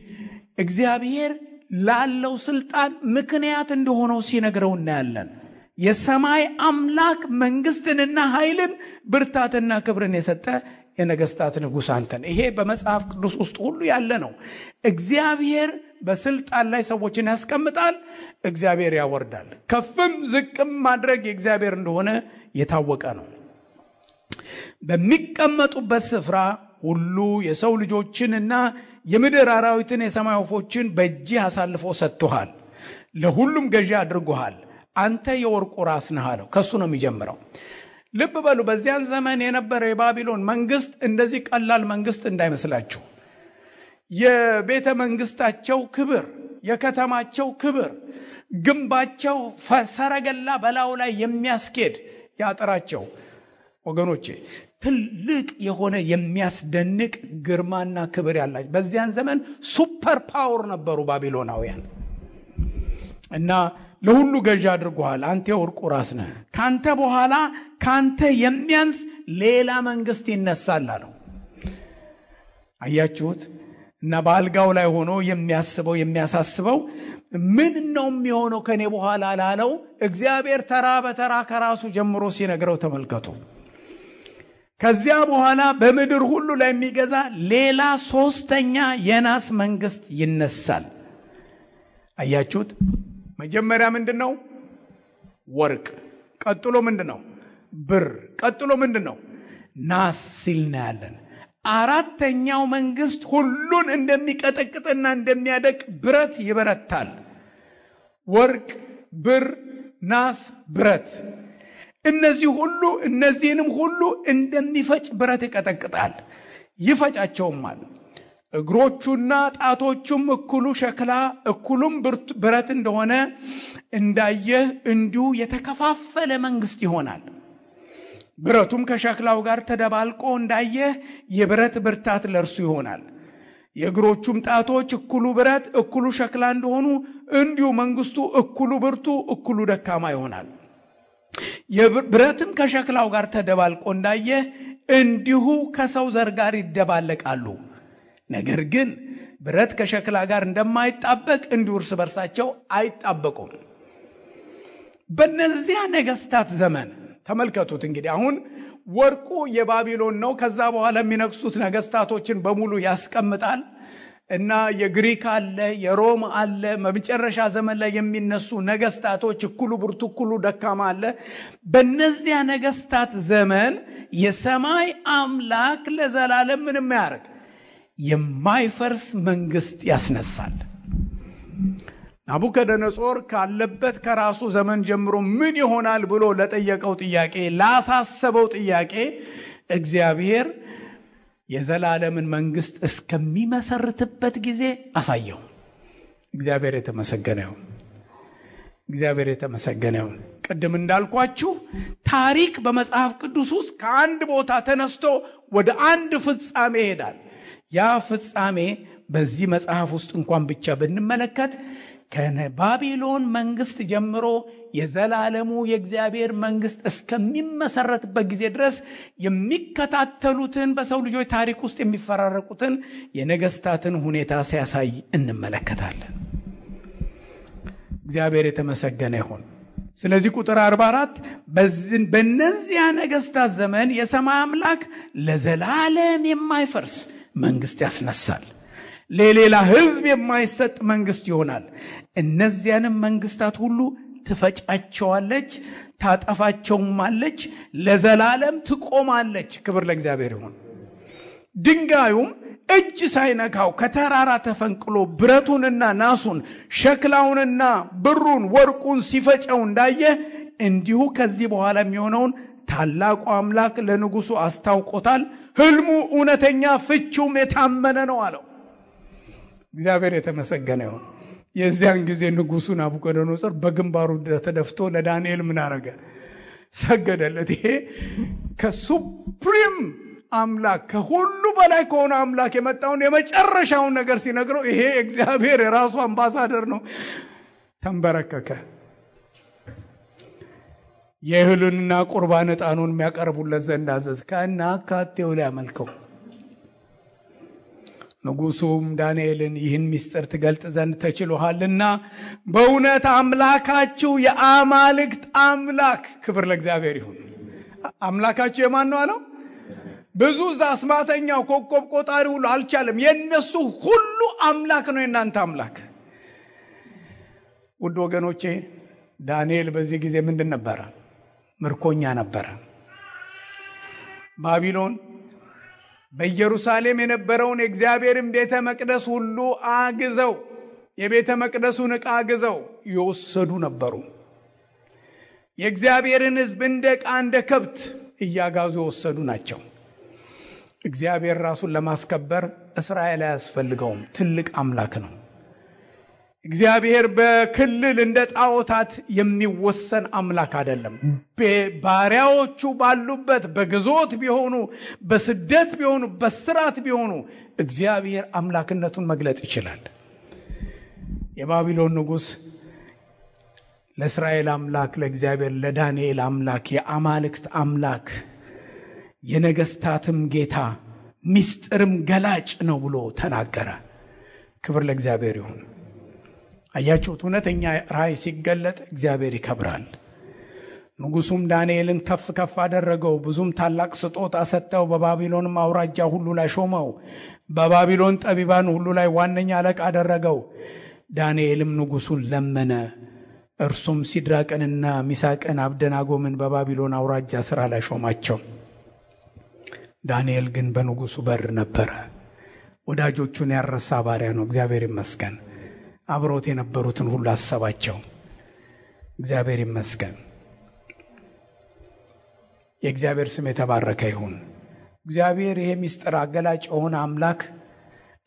እግዚአብሔር ላለው ስልጣን ምክንያት እንደሆነው ሲነግረው እናያለን። የሰማይ አምላክ መንግስትንና ኃይልን ብርታትና ክብርን የሰጠ የነገስታት ንጉሥ አንተ ነህ። ይሄ በመጽሐፍ ቅዱስ ውስጥ ሁሉ ያለ ነው። እግዚአብሔር በስልጣን ላይ ሰዎችን ያስቀምጣል፣ እግዚአብሔር ያወርዳል። ከፍም ዝቅም ማድረግ የእግዚአብሔር እንደሆነ የታወቀ ነው። በሚቀመጡበት ስፍራ ሁሉ የሰው ልጆችንና የምድር አራዊትን የሰማይ ወፎችን በእጅህ አሳልፎ ሰጥቶሃል፣ ለሁሉም ገዢ አድርጎሃል። አንተ የወርቁ ራስ ነህ አለው። ከሱ ነው የሚጀምረው። ልብ በሉ፣ በዚያን ዘመን የነበረ የባቢሎን መንግስት እንደዚህ ቀላል መንግስት እንዳይመስላችሁ። የቤተ መንግስታቸው ክብር፣ የከተማቸው ክብር፣ ግንባቸው ሰረገላ በላዩ ላይ የሚያስኬድ ያጥራቸው ወገኖቼ ትልቅ የሆነ የሚያስደንቅ ግርማና ክብር ያላቸው በዚያን ዘመን ሱፐር ፓወር ነበሩ ባቢሎናውያን። እና ለሁሉ ገዢ አድርጎሃል፣ አንተ የወርቁ ራስ ነህ። ካንተ በኋላ ካንተ የሚያንስ ሌላ መንግስት ይነሳል አለው። አያችሁት? እና በአልጋው ላይ ሆኖ የሚያስበው የሚያሳስበው ምን ነው የሚሆነው ከኔ በኋላ ላለው እግዚአብሔር ተራ በተራ ከራሱ ጀምሮ ሲነግረው ተመልከቱ። ከዚያ በኋላ በምድር ሁሉ ላይ የሚገዛ ሌላ ሶስተኛ የናስ መንግስት ይነሳል። አያችሁት? መጀመሪያ ምንድነው? ወርቅ። ቀጥሎ ምንድነው? ብር። ቀጥሎ ምንድነው? ናስ ሲል እናያለን። አራተኛው መንግስት ሁሉን እንደሚቀጠቅጥና እንደሚያደቅ ብረት ይበረታል። ወርቅ፣ ብር፣ ናስ፣ ብረት። እነዚህንም ሁሉ እንደሚፈጭ ብረት ይቀጠቅጣል፣ ይፈጫቸውማል። እግሮቹና ጣቶቹም እኩሉ ሸክላ እኩሉም ብረት እንደሆነ እንዳየህ እንዲሁ የተከፋፈለ መንግስት ይሆናል። ብረቱም ከሸክላው ጋር ተደባልቆ እንዳየህ የብረት ብርታት ለእርሱ ይሆናል። የእግሮቹም ጣቶች እኩሉ ብረት እኩሉ ሸክላ እንደሆኑ እንዲሁ መንግስቱ እኩሉ ብርቱ እኩሉ ደካማ ይሆናል። ብረትም ከሸክላው ጋር ተደባልቆ እንዳየህ እንዲሁ ከሰው ዘር ጋር ይደባለቃሉ። ነገር ግን ብረት ከሸክላ ጋር እንደማይጣበቅ እንዲሁ እርስ በርሳቸው አይጣበቁም። በእነዚያ ነገስታት ዘመን ተመልከቱት። እንግዲህ አሁን ወርቁ የባቢሎን ነው። ከዛ በኋላ የሚነግሱት ነገስታቶችን በሙሉ ያስቀምጣል እና የግሪክ አለ፣ የሮም አለ። በመጨረሻ ዘመን ላይ የሚነሱ ነገስታቶች እኩሉ ብርቱ እኩሉ ደካማ አለ። በእነዚያ ነገስታት ዘመን የሰማይ አምላክ ለዘላለም ምንም ያደርግ የማይፈርስ መንግስት ያስነሳል። ናቡከደነጾር ካለበት ከራሱ ዘመን ጀምሮ ምን ይሆናል ብሎ ለጠየቀው ጥያቄ፣ ላሳሰበው ጥያቄ እግዚአብሔር የዘላለምን መንግስት እስከሚመሰርትበት ጊዜ አሳየው። እግዚአብሔር የተመሰገነ ይሁን። እግዚአብሔር የተመሰገነ ይሁን። ቅድም እንዳልኳችሁ ታሪክ በመጽሐፍ ቅዱስ ውስጥ ከአንድ ቦታ ተነስቶ ወደ አንድ ፍጻሜ ይሄዳል። ያ ፍጻሜ በዚህ መጽሐፍ ውስጥ እንኳን ብቻ ብንመለከት ከባቢሎን መንግስት ጀምሮ የዘላለሙ የእግዚአብሔር መንግስት እስከሚመሰረትበት ጊዜ ድረስ የሚከታተሉትን በሰው ልጆች ታሪክ ውስጥ የሚፈራረቁትን የነገስታትን ሁኔታ ሲያሳይ እንመለከታለን። እግዚአብሔር የተመሰገነ ይሁን። ስለዚህ ቁጥር 44 በእነዚያ ነገስታት ዘመን የሰማይ አምላክ ለዘላለም የማይፈርስ መንግስት ያስነሳል፣ ለሌላ ህዝብ የማይሰጥ መንግስት ይሆናል። እነዚያንም መንግስታት ሁሉ ትፈጫቸዋለች፣ ታጠፋቸውማለች፣ ለዘላለም ትቆማለች። ክብር ለእግዚአብሔር ይሁን። ድንጋዩም እጅ ሳይነካው ከተራራ ተፈንቅሎ ብረቱንና ናሱን ሸክላውንና ብሩን ወርቁን ሲፈጨው እንዳየ እንዲሁ ከዚህ በኋላ የሚሆነውን ታላቁ አምላክ ለንጉሱ አስታውቆታል። ህልሙ እውነተኛ ፍቺውም የታመነ ነው አለው። እግዚአብሔር የተመሰገነ ይሁን። የዚያን ጊዜ ንጉሱ ናቡከደነጾር በግንባሩ ተደፍቶ ለዳንኤል ምን አረገ? ሰገደለት። ይሄ ከሱፕሪም አምላክ ከሁሉ በላይ ከሆነ አምላክ የመጣውን የመጨረሻውን ነገር ሲነግረው ይሄ እግዚአብሔር የራሱ አምባሳደር ነው። ተንበረከከ። የእህሉንና ቁርባን ዕጣኑን የሚያቀርቡለት ዘንድ አዘዝ። ከናካቴው ላይ አመልከው። ንጉሱም ዳንኤልን ይህን ምስጢር ትገልጥ ዘንድ ተችሎሃልና በእውነት አምላካችሁ የአማልክት አምላክ፣ ክብር ለእግዚአብሔር ይሁን። አምላካችሁ የማን ነው አለው? ብዙ አስማተኛው ኮከብ ቆጣሪ ሁሉ አልቻለም። የነሱ ሁሉ አምላክ ነው የናንተ አምላክ። ውድ ወገኖቼ ዳንኤል በዚህ ጊዜ ምንድን ነበረ? ምርኮኛ ነበረ። ባቢሎን በኢየሩሳሌም የነበረውን የእግዚአብሔርን ቤተ መቅደስ ሁሉ አግዘው፣ የቤተ መቅደሱን ዕቃ አግዘው ይወሰዱ ነበሩ። የእግዚአብሔርን ሕዝብ እንደ ዕቃ እንደ ከብት እያጋዙ የወሰዱ ናቸው። እግዚአብሔር ራሱን ለማስከበር እስራኤል አያስፈልገውም። ትልቅ አምላክ ነው። እግዚአብሔር በክልል እንደ ጣዖታት የሚወሰን አምላክ አይደለም። ባሪያዎቹ ባሉበት በግዞት ቢሆኑ፣ በስደት ቢሆኑ፣ በስራት ቢሆኑ እግዚአብሔር አምላክነቱን መግለጥ ይችላል። የባቢሎን ንጉሥ ለእስራኤል አምላክ ለእግዚአብሔር ለዳንኤል አምላክ የአማልክት አምላክ የነገስታትም ጌታ ምስጢርም ገላጭ ነው ብሎ ተናገረ። ክብር ለእግዚአብሔር ይሁን። አያችሁት? እውነተኛ ራእይ ሲገለጥ እግዚአብሔር ይከብራል። ንጉሱም ዳንኤልን ከፍ ከፍ አደረገው፣ ብዙም ታላቅ ስጦታ ሰጠው። በባቢሎንም አውራጃ ሁሉ ላይ ሾመው፣ በባቢሎን ጠቢባን ሁሉ ላይ ዋነኛ አለቃ አደረገው። ዳንኤልም ንጉሱን ለመነ። እርሱም ሲድራቅንና ሚሳቅን አብደናጎምን በባቢሎን አውራጃ ስራ ላይ ሾማቸው። ዳንኤል ግን በንጉሱ በር ነበረ። ወዳጆቹን ያረሳ ባሪያ ነው። እግዚአብሔር ይመስገን። አብሮት የነበሩትን ሁሉ አሰባቸው። እግዚአብሔር ይመስገን። የእግዚአብሔር ስም የተባረከ ይሁን። እግዚአብሔር ይሄ ምስጢር አገላጭ የሆነ አምላክ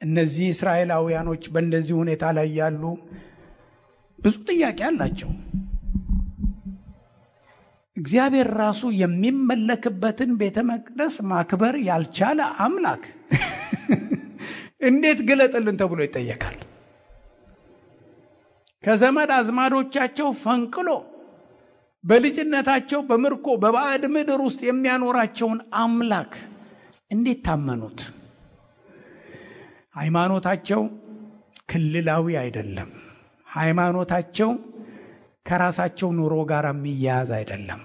እነዚህ እስራኤላውያኖች በእንደዚህ ሁኔታ ላይ ያሉ ብዙ ጥያቄ አላቸው። እግዚአብሔር ራሱ የሚመለክበትን ቤተ መቅደስ ማክበር ያልቻለ አምላክ እንዴት ግለጥልን ተብሎ ይጠየቃል? ከዘመድ አዝማዶቻቸው ፈንቅሎ በልጅነታቸው በምርኮ በባዕድ ምድር ውስጥ የሚያኖራቸውን አምላክ እንዴት ታመኑት? ሃይማኖታቸው ክልላዊ አይደለም። ሃይማኖታቸው ከራሳቸው ኑሮ ጋር የሚያያዝ አይደለም።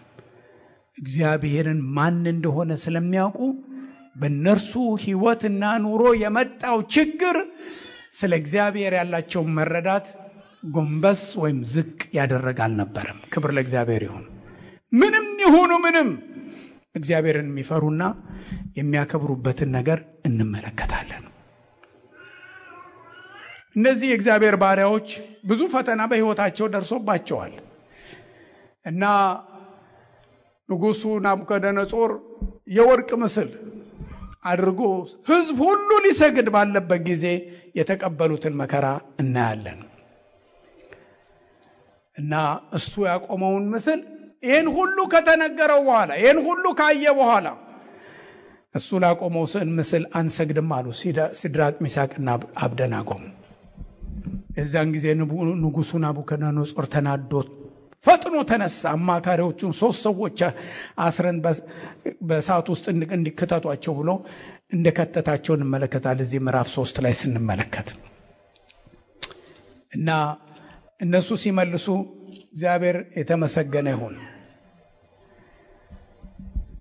እግዚአብሔርን ማን እንደሆነ ስለሚያውቁ በእነርሱ ሕይወትና ኑሮ የመጣው ችግር ስለ እግዚአብሔር ያላቸው መረዳት ጎንበስ ወይም ዝቅ ያደረገ አልነበረም። ክብር ለእግዚአብሔር ይሁን። ምንም ይሁኑ ምንም እግዚአብሔርን የሚፈሩና የሚያከብሩበትን ነገር እንመለከታለን። እነዚህ የእግዚአብሔር ባሪያዎች ብዙ ፈተና በሕይወታቸው ደርሶባቸዋል እና ንጉሡ ናቡከደነጾር የወርቅ ምስል አድርጎ ሕዝብ ሁሉ ሊሰግድ ባለበት ጊዜ የተቀበሉትን መከራ እናያለን። እና እሱ ያቆመውን ምስል ይህን ሁሉ ከተነገረው በኋላ ይህን ሁሉ ካየ በኋላ እሱ ላቆመው ምስል አንሰግድም አሉ ሲድራቅ ሚሳቅና አብደናጎ። የዛን ጊዜ ንጉሡ ናቡከደነጾር ተናዶ ፈጥኖ ተነሳ። አማካሪዎቹን 3 ሰዎች አስረን በእሳት ውስጥ እንዲከተቷቸው ብሎ እንደከተታቸው እንመለከታለን እዚህ ምዕራፍ 3 ላይ ስንመለከት። እና እነሱ ሲመልሱ እግዚአብሔር የተመሰገነ ይሁን።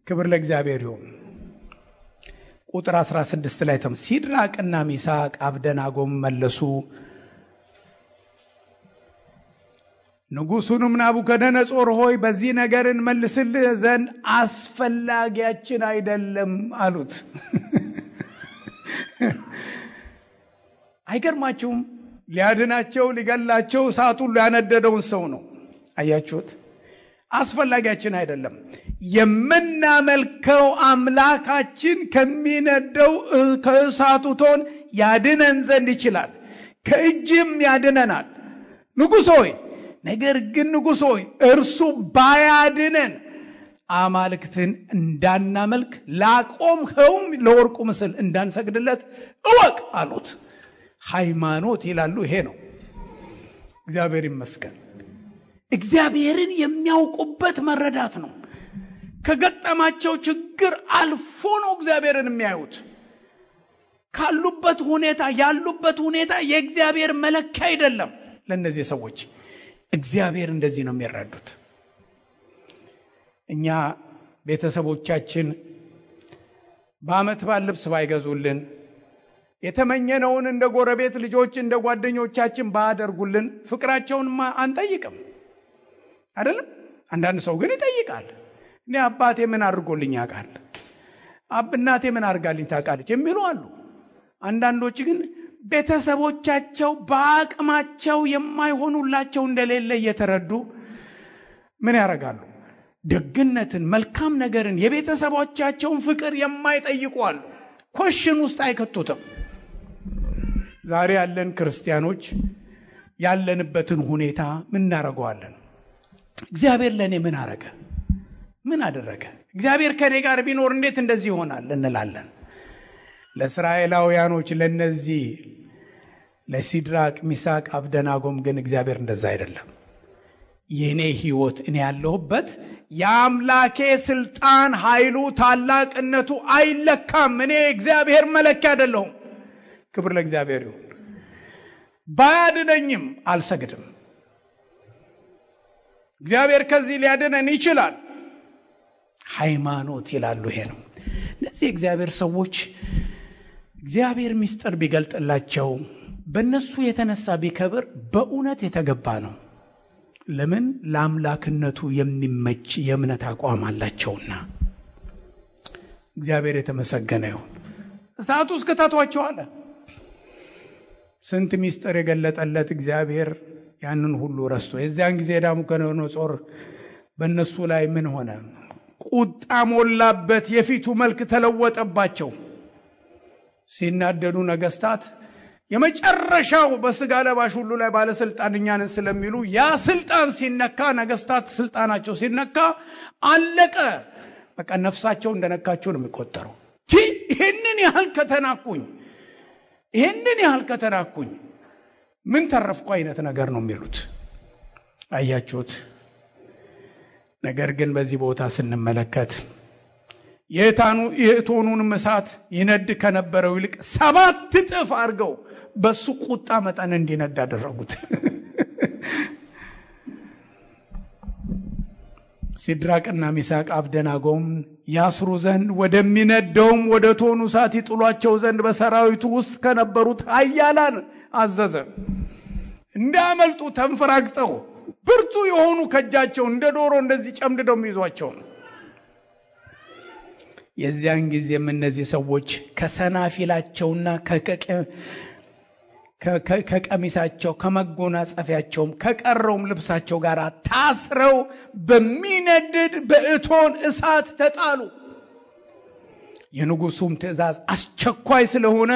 ክብር ለእግዚአብሔር ይሁን። ቁጥር 16 ላይ ሲድራቅና ሚሳቅ አብደናጎም መለሱ። ንጉሡንም ናቡከደነጾር ሆይ በዚህ ነገር እንመልስልህ ዘንድ አስፈላጊያችን አይደለም አሉት። አይገርማችሁም? ሊያድናቸው ሊገላቸው እሳቱን ያነደደውን ሰው ነው። አያችሁት? አስፈላጊያችን አይደለም። የምናመልከው አምላካችን ከሚነደው ከእሳቱ ቶን ያድነን ዘንድ ይችላል፣ ከእጅም ያድነናል። ንጉሥ ሆይ ነገር ግን ንጉሥ ሆይ እርሱ ባያድነን አማልክትን እንዳናመልክ ላቆምኸውም ለወርቁ ምስል እንዳንሰግድለት እወቅ አሉት። ሃይማኖት ይላሉ ይሄ ነው። እግዚአብሔር ይመስገን። እግዚአብሔርን የሚያውቁበት መረዳት ነው። ከገጠማቸው ችግር አልፎ ነው እግዚአብሔርን የሚያዩት። ካሉበት ሁኔታ ያሉበት ሁኔታ የእግዚአብሔር መለኪያ አይደለም። ለነዚህ ሰዎች እግዚአብሔር እንደዚህ ነው የሚረዱት። እኛ ቤተሰቦቻችን በዓመት በዓል ልብስ ባይገዙልን፣ የተመኘነውን እንደ ጎረቤት ልጆች እንደ ጓደኞቻችን ባያደርጉልን ፍቅራቸውን አንጠይቅም አይደለም? አንዳንድ ሰው ግን ይጠይቃል። እኔ አባቴ ምን አድርጎልኝ ያውቃል? እናቴ ምን አድርጋልኝ ታውቃለች የሚሉ አሉ። አንዳንዶች ግን ቤተሰቦቻቸው በአቅማቸው የማይሆኑላቸው እንደሌለ እየተረዱ ምን ያደርጋሉ? ደግነትን፣ መልካም ነገርን፣ የቤተሰቦቻቸውን ፍቅር የማይጠይቁ አሉ። ኮሽን ውስጥ አይከቱትም። ዛሬ ያለን ክርስቲያኖች ያለንበትን ሁኔታ ምን እናደርገዋለን? እግዚአብሔር ለእኔ ምን አረገ? ምን አደረገ? እግዚአብሔር ከኔ ጋር ቢኖር እንዴት እንደዚህ ይሆናል እንላለን። ለእስራኤላውያኖች ለነዚህ ለሲድራቅ ሚሳቅ አብደናጎም ግን እግዚአብሔር እንደዛ አይደለም። የኔ ህይወት እኔ ያለሁበት የአምላኬ ስልጣን ኃይሉ ታላቅነቱ አይለካም። እኔ እግዚአብሔር መለኪያ አይደለሁም። ክብር ለእግዚአብሔር ይሁን። ባያድነኝም አልሰግድም። እግዚአብሔር ከዚህ ሊያድነን ይችላል። ሃይማኖት ይላሉ ይሄ ነው። እነዚህ እግዚአብሔር ሰዎች እግዚአብሔር ምስጢር ቢገልጥላቸው በእነሱ የተነሳ ቢከብር በእውነት የተገባ ነው። ለምን? ለአምላክነቱ የሚመች የእምነት አቋም አላቸውና። እግዚአብሔር የተመሰገነ ይሁን። እሳቱ ውስጥ ከተቷቸው አለ። ስንት ምስጢር የገለጠለት እግዚአብሔር ያንን ሁሉ ረስቶ የዚያን ጊዜ ናቡከደነጾር በእነሱ ላይ ምን ሆነ? ቁጣ ሞላበት። የፊቱ መልክ ተለወጠባቸው። ሲናደዱ ነገስታት የመጨረሻው በስጋ ለባሽ ሁሉ ላይ ባለስልጣን እኛ ነን ስለሚሉ ያ ስልጣን ሲነካ ነገስታት ስልጣናቸው ሲነካ አለቀ። በቃ ነፍሳቸው እንደነካቸው ነው የሚቆጠረው። ይሄንን ያህል ከተናኩኝ ምን ተረፍኩ አይነት ነገር ነው የሚሉት። አያችሁት? ነገር ግን በዚህ ቦታ ስንመለከት የእቶኑን እሳት ይነድ ከነበረው ይልቅ 7 እጥፍ አድርገው በሱ ቁጣ መጠን እንዲነድ አደረጉት። ሲድራቅና ሚሳቅ አብደናጎም ያስሩ ዘንድ ወደሚነደውም ወደ እቶኑ እሳት ይጥሏቸው ዘንድ በሰራዊቱ ውስጥ ከነበሩት ኃያላን አዘዘ። እንዳመልጡ ተንፈራግጠው ብርቱ የሆኑ ከጃቸው እንደ ዶሮ እንደዚህ ጨምድደው የሚይዟቸው ነው። የዚያን ጊዜም እነዚህ ሰዎች ከሰናፊላቸውና ከቀሚሳቸው ከመጎናጸፊያቸውም ከቀረውም ልብሳቸው ጋር ታስረው በሚነድድ በእቶን እሳት ተጣሉ። የንጉሱም ትእዛዝ አስቸኳይ ስለሆነ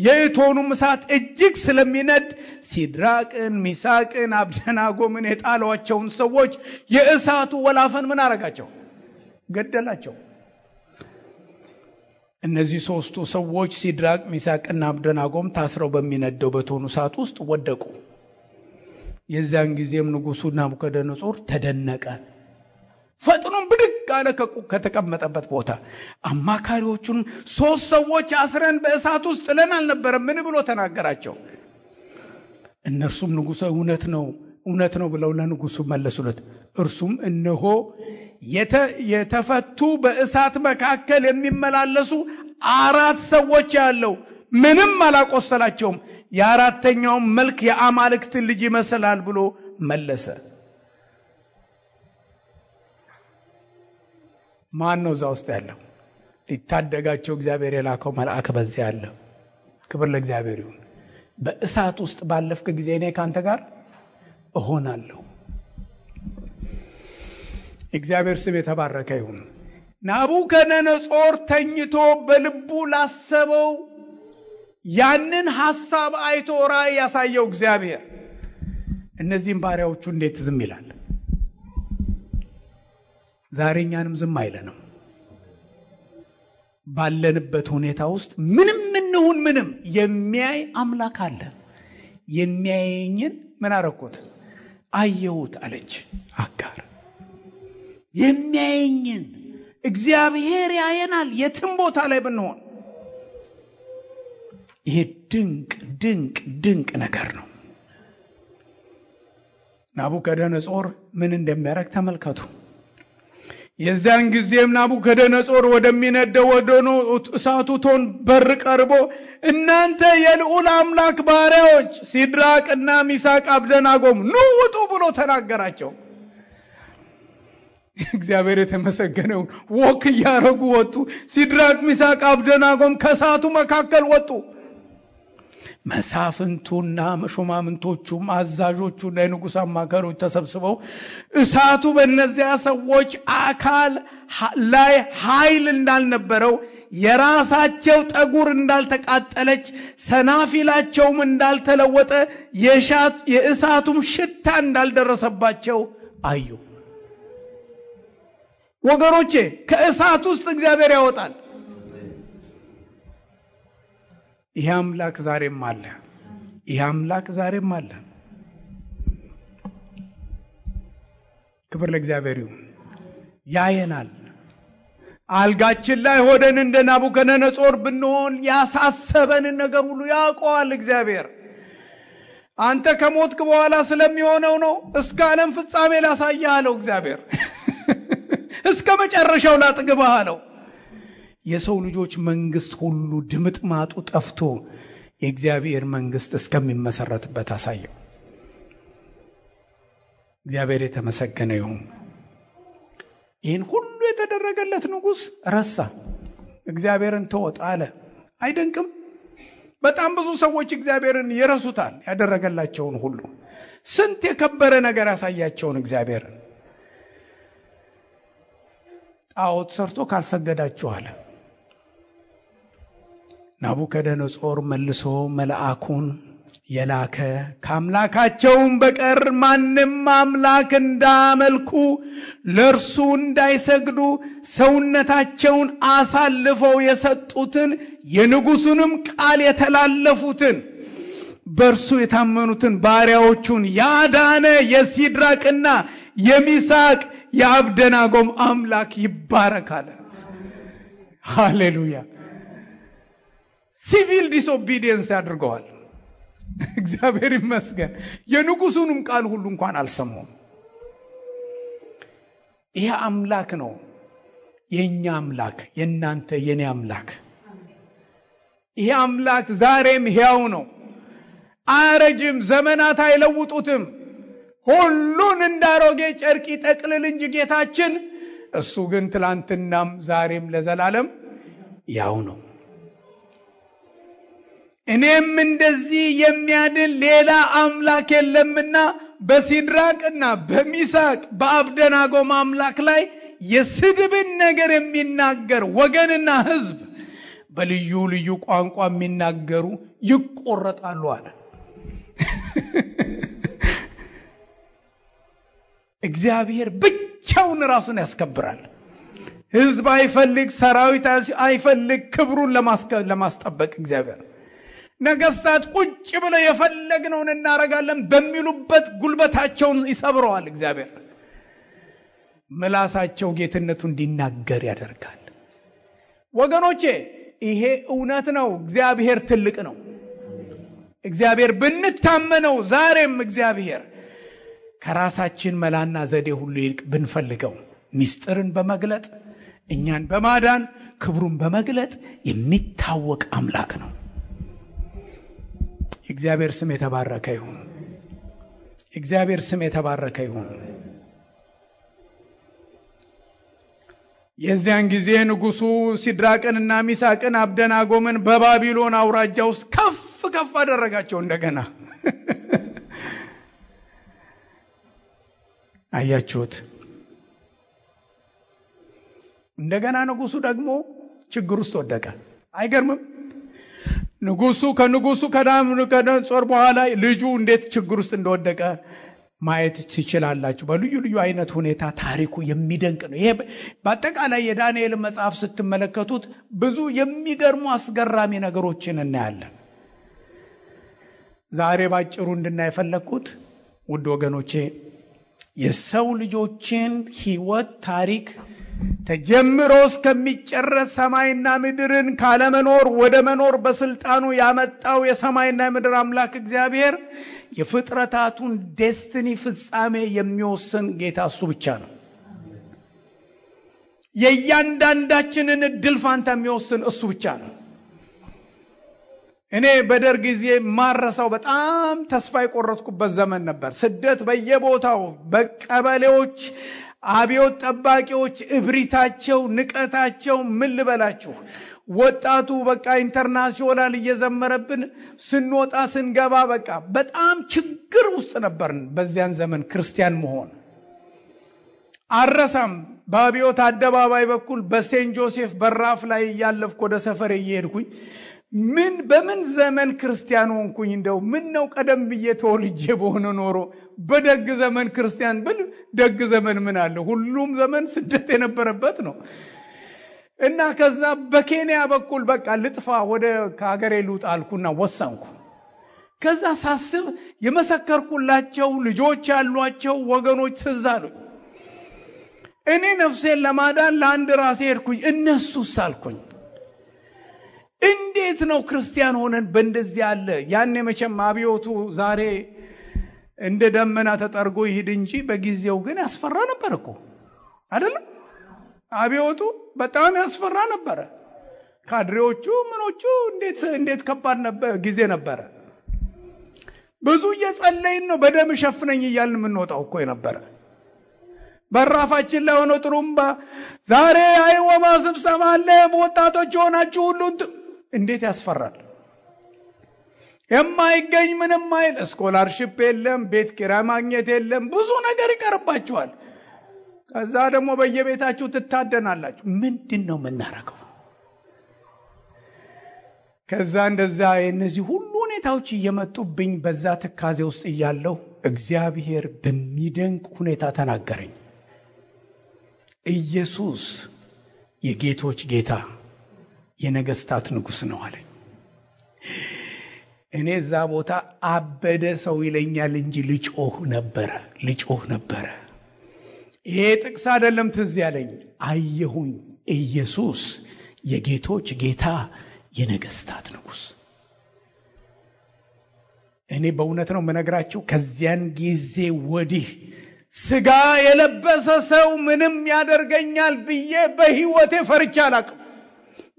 የእቶኑም እሳት እጅግ ስለሚነድ ሲድራቅን ሚሳቅን አብደናጎምን የጣሏቸውን ሰዎች የእሳቱ ወላፈን ምን አረጋቸው? ገደላቸው። እነዚህ 3ቱ ሰዎች ሲድራቅ ሚሳቅና አብደናጎም ታስረው በሚነደው በእቶኑ እሳት ውስጥ ወደቁ። የዚያን ጊዜም ንጉሱ ናቡከደነጾር ተደነቀ። ፈጥኖም ብድግ አለ ከተቀመጠበት ቦታ። አማካሪዎቹን 3 ሰዎች አስረን በእሳት ውስጥ ጥለን አልነበረም ምን ብሎ ተናገራቸው። እነርሱም ንጉሡ እውነት ነው ብለው ለንጉሱ መለሱለት። እርሱም እነሆ የተፈቱ በእሳት መካከል የሚመላለሱ 4 ሰዎች ያለው ምንም አላቆሰላቸውም፣ የ4ተኛውም መልክ የአማልክት ልጅ ይመስላል ብሎ መለሰ። ማን ነው እዛ ውስጥ ያለው? ሊታደጋቸው እግዚአብሔር የላከው መልአክ በዚያ አለ። ክብር ለእግዚአብሔር ይሁን። በእሳት ውስጥ ባለፍክ ጊዜ እኔ ካንተ ጋር እሆናለሁ። እግዚአብሔር ስም የተባረከ ይሁን። ናቡከደነጾር ተኝቶ በልቡ ላሰበው ያንን ሐሳብ አይቶ ራእይ ያሳየው እግዚአብሔር እነዚህን ባሪያዎቹ እንዴት ዝም ይላል? ዛሬኛንም ዝም አይለንም። ባለንበት ሁኔታ ውስጥ ምንም እንሁን ምንም የሚያይ አምላክ አለ። የሚያየኝን ምን አረኩት? አየሁት አለች አጋር። የሚያየኝን እግዚአብሔር ያየናል የትም ቦታ ላይ ብንሆን። ይሄ ድንቅ ነገር ነው። ናቡከደነጾር ምን እንደሚያደርግ ተመልከቱ። የዛን ጊዜም ናቡከደነጾር ወደሚነደው ወደ እሳቱ እቶን በር ቀርቦ እናንተ የልዑል አምላክ ባሪያዎች ሲድራቅና ሚሳቅ አብደናጎም ኑ ውጡ ብሎ ተናገራቸው። እግዚአብሔር የተመሰገነው ወክ ያረጉ ወጡ። ሲድራቅ ሚሳቅ አብደናጎም ከእሳቱ መካከል ወጡ። መሳፍንቱና መሾማምንቶቹም አዛዦቹና የንጉሥ አማካሪዎች ተሰብስበው እሳቱ በእነዚያ ሰዎች አካል ላይ ኃይል እንዳልነበረው የራሳቸው ጠጉር እንዳልተቃጠለች ሰናፊላቸውም እንዳልተለወጠ የእሳቱም ሽታ እንዳልደረሰባቸው አዩ። ወገኖቼ ከእሳት ውስጥ እግዚአብሔር ያወጣል። ይህ አምላክ ዛሬም አለ። ክብር ለእግዚአብሔር ይሁን። ያየናል። አልጋችን ላይ ሆደን እንደ ናቡከደነጾር ብንሆን ያሳሰበንን ነገር ሁሉ ያውቀዋል እግዚአብሔር። አንተ ከሞትክ በኋላ ስለሚሆነው ነው እስከ ዓለም ፍጻሜ ላሳይህ አለው እግዚአብሔር። እስከ መጨረሻው ላጥግብህ አለው። የሰው ልጆች መንግስት ሁሉ ድምጥማጡ ጠፍቶ የእግዚአብሔር መንግስት እስከሚመሰረትበት አሳየው። እግዚአብሔር የተመሰገነ ይሁን። ይህን ሁሉ የተደረገለት ንጉሥ ረሳ፣ እግዚአብሔርን ተወጥ አለ። አይደንቅም? በጣም ብዙ ሰዎች እግዚአብሔርን ይረሱታል። ያደረገላቸውን ሁሉ ስንት የከበረ ነገር ያሳያቸውን እግዚአብሔርን ጣዖት ሰርቶ ካልሰገዳችሁ አለ። ናቡከደነጾር መልሶ መልአኩን የላከ ከአምላካቸውም በቀር ማንም አምላክ እንዳመልኩ ለእርሱ እንዳይሰግዱ ሰውነታቸውን አሳልፈው የሰጡትን የንጉሡንም ቃል የተላለፉትን በእርሱ የታመኑትን ባሪያዎቹን ያዳነ የሲድራቅና የሚሳቅ የአብደናጎም አምላክ ይባረካል። ሃሌሉያ። ሲቪል ዲስኦቢዲየንስ ያድርገዋል። እግዚአብሔር ይመስገን። የንጉሡንም ቃል ሁሉ እንኳን አልሰሙም። ይሄ አምላክ ነው የኛ አምላክ፣ የናንተ የኔ አምላክ። ይሄ አምላክ ዛሬም ሕያው ነው፣ አያረጅም፣ ዘመናት አይለውጡትም። ሁሉን እንዳሮጌ ጨርቅ ይጠቅልል እንጂ ጌታችን፣ እሱ ግን ትላንትናም ዛሬም ለዘላለም ያው ነው። እኔም እንደዚህ የሚያድን ሌላ አምላክ የለምና በሲድራቅና በሚሳቅ በአብደናጎም አምላክ ላይ የስድብን ነገር የሚናገር ወገንና ሕዝብ በልዩ ልዩ ቋንቋ የሚናገሩ ይቆረጣሉ አለ። እግዚአብሔር ብቻውን ራሱን ያስከብራል። ሕዝብ አይፈልግ፣ ሰራዊት አይፈልግ፣ ክብሩን ለማስጠበቅ እግዚአብሔር ነገስታት ቁጭ ብለው የፈለግነውን እናረጋለን በሚሉበት ጉልበታቸውን ይሰብረዋል። እግዚአብሔር ምላሳቸው ጌትነቱ እንዲናገር ያደርጋል። ወገኖቼ ይሄ እውነት ነው። እግዚአብሔር ትልቅ ነው። እግዚአብሔር ብንታመነው ዛሬም እግዚአብሔር ከራሳችን መላና ዘዴ ሁሉ ይልቅ ብንፈልገው ሚስጥርን በመግለጥ እኛን በማዳን ክብሩን በመግለጥ የሚታወቅ አምላክ ነው። እግዚአብሔር ስም የተባረከ ይሁን። እግዚአብሔር ስም የተባረከ ይሁን። የዚያን ጊዜ ንጉሡ ሲድራቅንና ሚሳቅን አብደናጎምን በባቢሎን አውራጃ ውስጥ ከፍ ከፍ አደረጋቸው። እንደገና አያችሁት? እንደገና ንጉሡ ደግሞ ችግር ውስጥ ወደቀ። አይገርምም? ከንጉሡ ከናቡከደነጾር በኋላ ልጁ እንዴት ችግር ውስጥ እንደወደቀ ማየት ትችላላችሁ። በልዩ ልዩ አይነት ሁኔታ ታሪኩ የሚደንቅ ነው። ይሄ በአጠቃላይ የዳንኤል መጽሐፍ ስትመለከቱት ብዙ የሚገርሙ አስገራሚ ነገሮችን እናያለን። ዛሬ ባጭሩ እንድናይ የፈለኩት ውድ ወገኖቼ የሰው ልጆችን ሕይወት ታሪክ ተጀምሮ እስከሚጨረስ ሰማይና ምድርን ካለመኖር ወደ መኖር በስልጣኑ ያመጣው የሰማይና የምድር አምላክ እግዚአብሔር የፍጥረታቱን ዴስቲኒ ፍጻሜ የሚወስን ጌታ እሱ ብቻ ነው። የእያንዳንዳችንን እድል ፋንታ የሚወስን እሱ ብቻ ነው። እኔ በደርግ ጊዜ ማረሳው በጣም ተስፋ የቆረጥኩበት ዘመን ነበር። ስደት በየቦታው በቀበሌዎች አብዮት ጠባቂዎች እብሪታቸው፣ ንቀታቸው ምን ልበላችሁ። ወጣቱ በቃ ኢንተርናሽናል እየዘመረብን ስንወጣ ስንገባ በቃ በጣም ችግር ውስጥ ነበርን። በዚያን ዘመን ክርስቲያን መሆን አረሳም። በአብዮት አደባባይ በኩል በሴንት ጆሴፍ በራፍ ላይ ያለፍኩ ወደ ሰፈሬ እየሄድኩኝ በምን ዘመን ክርስቲያን ሆንኩኝ? እንደው ምን ነው ቀደም ብዬ ተወልጄ በሆነ ኖሮ በደግ ዘመን ክርስቲያን ብል ደግ ዘመን ምን አለ? ሁሉም ዘመን ስደት የነበረበት ነው። እና ከዛ በኬንያ በኩል በቃ ልጥፋ ወደ ከሀገሬ ልውጣ አልኩና ወሰንኩ። ከዛ ሳስብ የመሰከርኩላቸው ልጆች ያሏቸው ወገኖች ትዝ አሉኝ። እኔ ነፍሴን ለማዳን ለአንድ ራሴ ሄድኩኝ፣ እነሱስ አልኩኝ እንዴት ነው ክርስቲያን ሆነን በእንደዚህ ያለ ያኔ መቼም አብዮቱ ዛሬ እንደ ደመና ተጠርጎ ይሄድ እንጂ በጊዜው ግን ያስፈራ ነበር እኮ አይደለም? አብዮቱ በጣም ያስፈራ ነበር። ካድሬዎቹ ምኖቹ እንዴት ከባድ ነበር ጊዜ ነበር። ብዙ እየጸለይን ነው በደም ሸፍነኝ እያልን የምንወጣው እኮ ነበር። በራፋችን ላይ ሆኖ ጥሩምባ ዛሬ አይወማ ስብሰባ አለ ወጣቶች ሆናችሁ ሁሉ እንዴት ያስፈራል። የማይገኝ ምንም አይል ስኮላርሺፕ የለም፣ ቤት ኪራይ ማግኘት የለም፣ ብዙ ነገር ይቀርባችኋል። ከዛ ደግሞ በየቤታችሁ ትታደናላችሁ። ምንድነው የምናረገው? ከዛ እንደዛ እነዚህ ሁሉ ሁኔታዎች እየመጡብኝ በዛ ትካዜ ውስጥ እያለሁ እግዚአብሔር በሚደንቅ ሁኔታ ተናገረኝ። ኢየሱስ የጌቶች ጌታ የነገስታት ንጉስ ነው አለኝ። እኔ እዛ ቦታ አበደ ሰው ይለኛል እንጂ ልጮህ ነበረ። ይሄ ጥቅስ አይደለም ትዝ ያለኝ። አየሁኝ ኢየሱስ የጌቶች ጌታ የነገስታት ንጉስ። እኔ በእውነት ነው የምነግራችሁ፣ ከዚያን ጊዜ ወዲህ ስጋ የለበሰ ሰው ምንም ያደርገኛል ብዬ በህይወቴ ፈርቼ አላውቅም።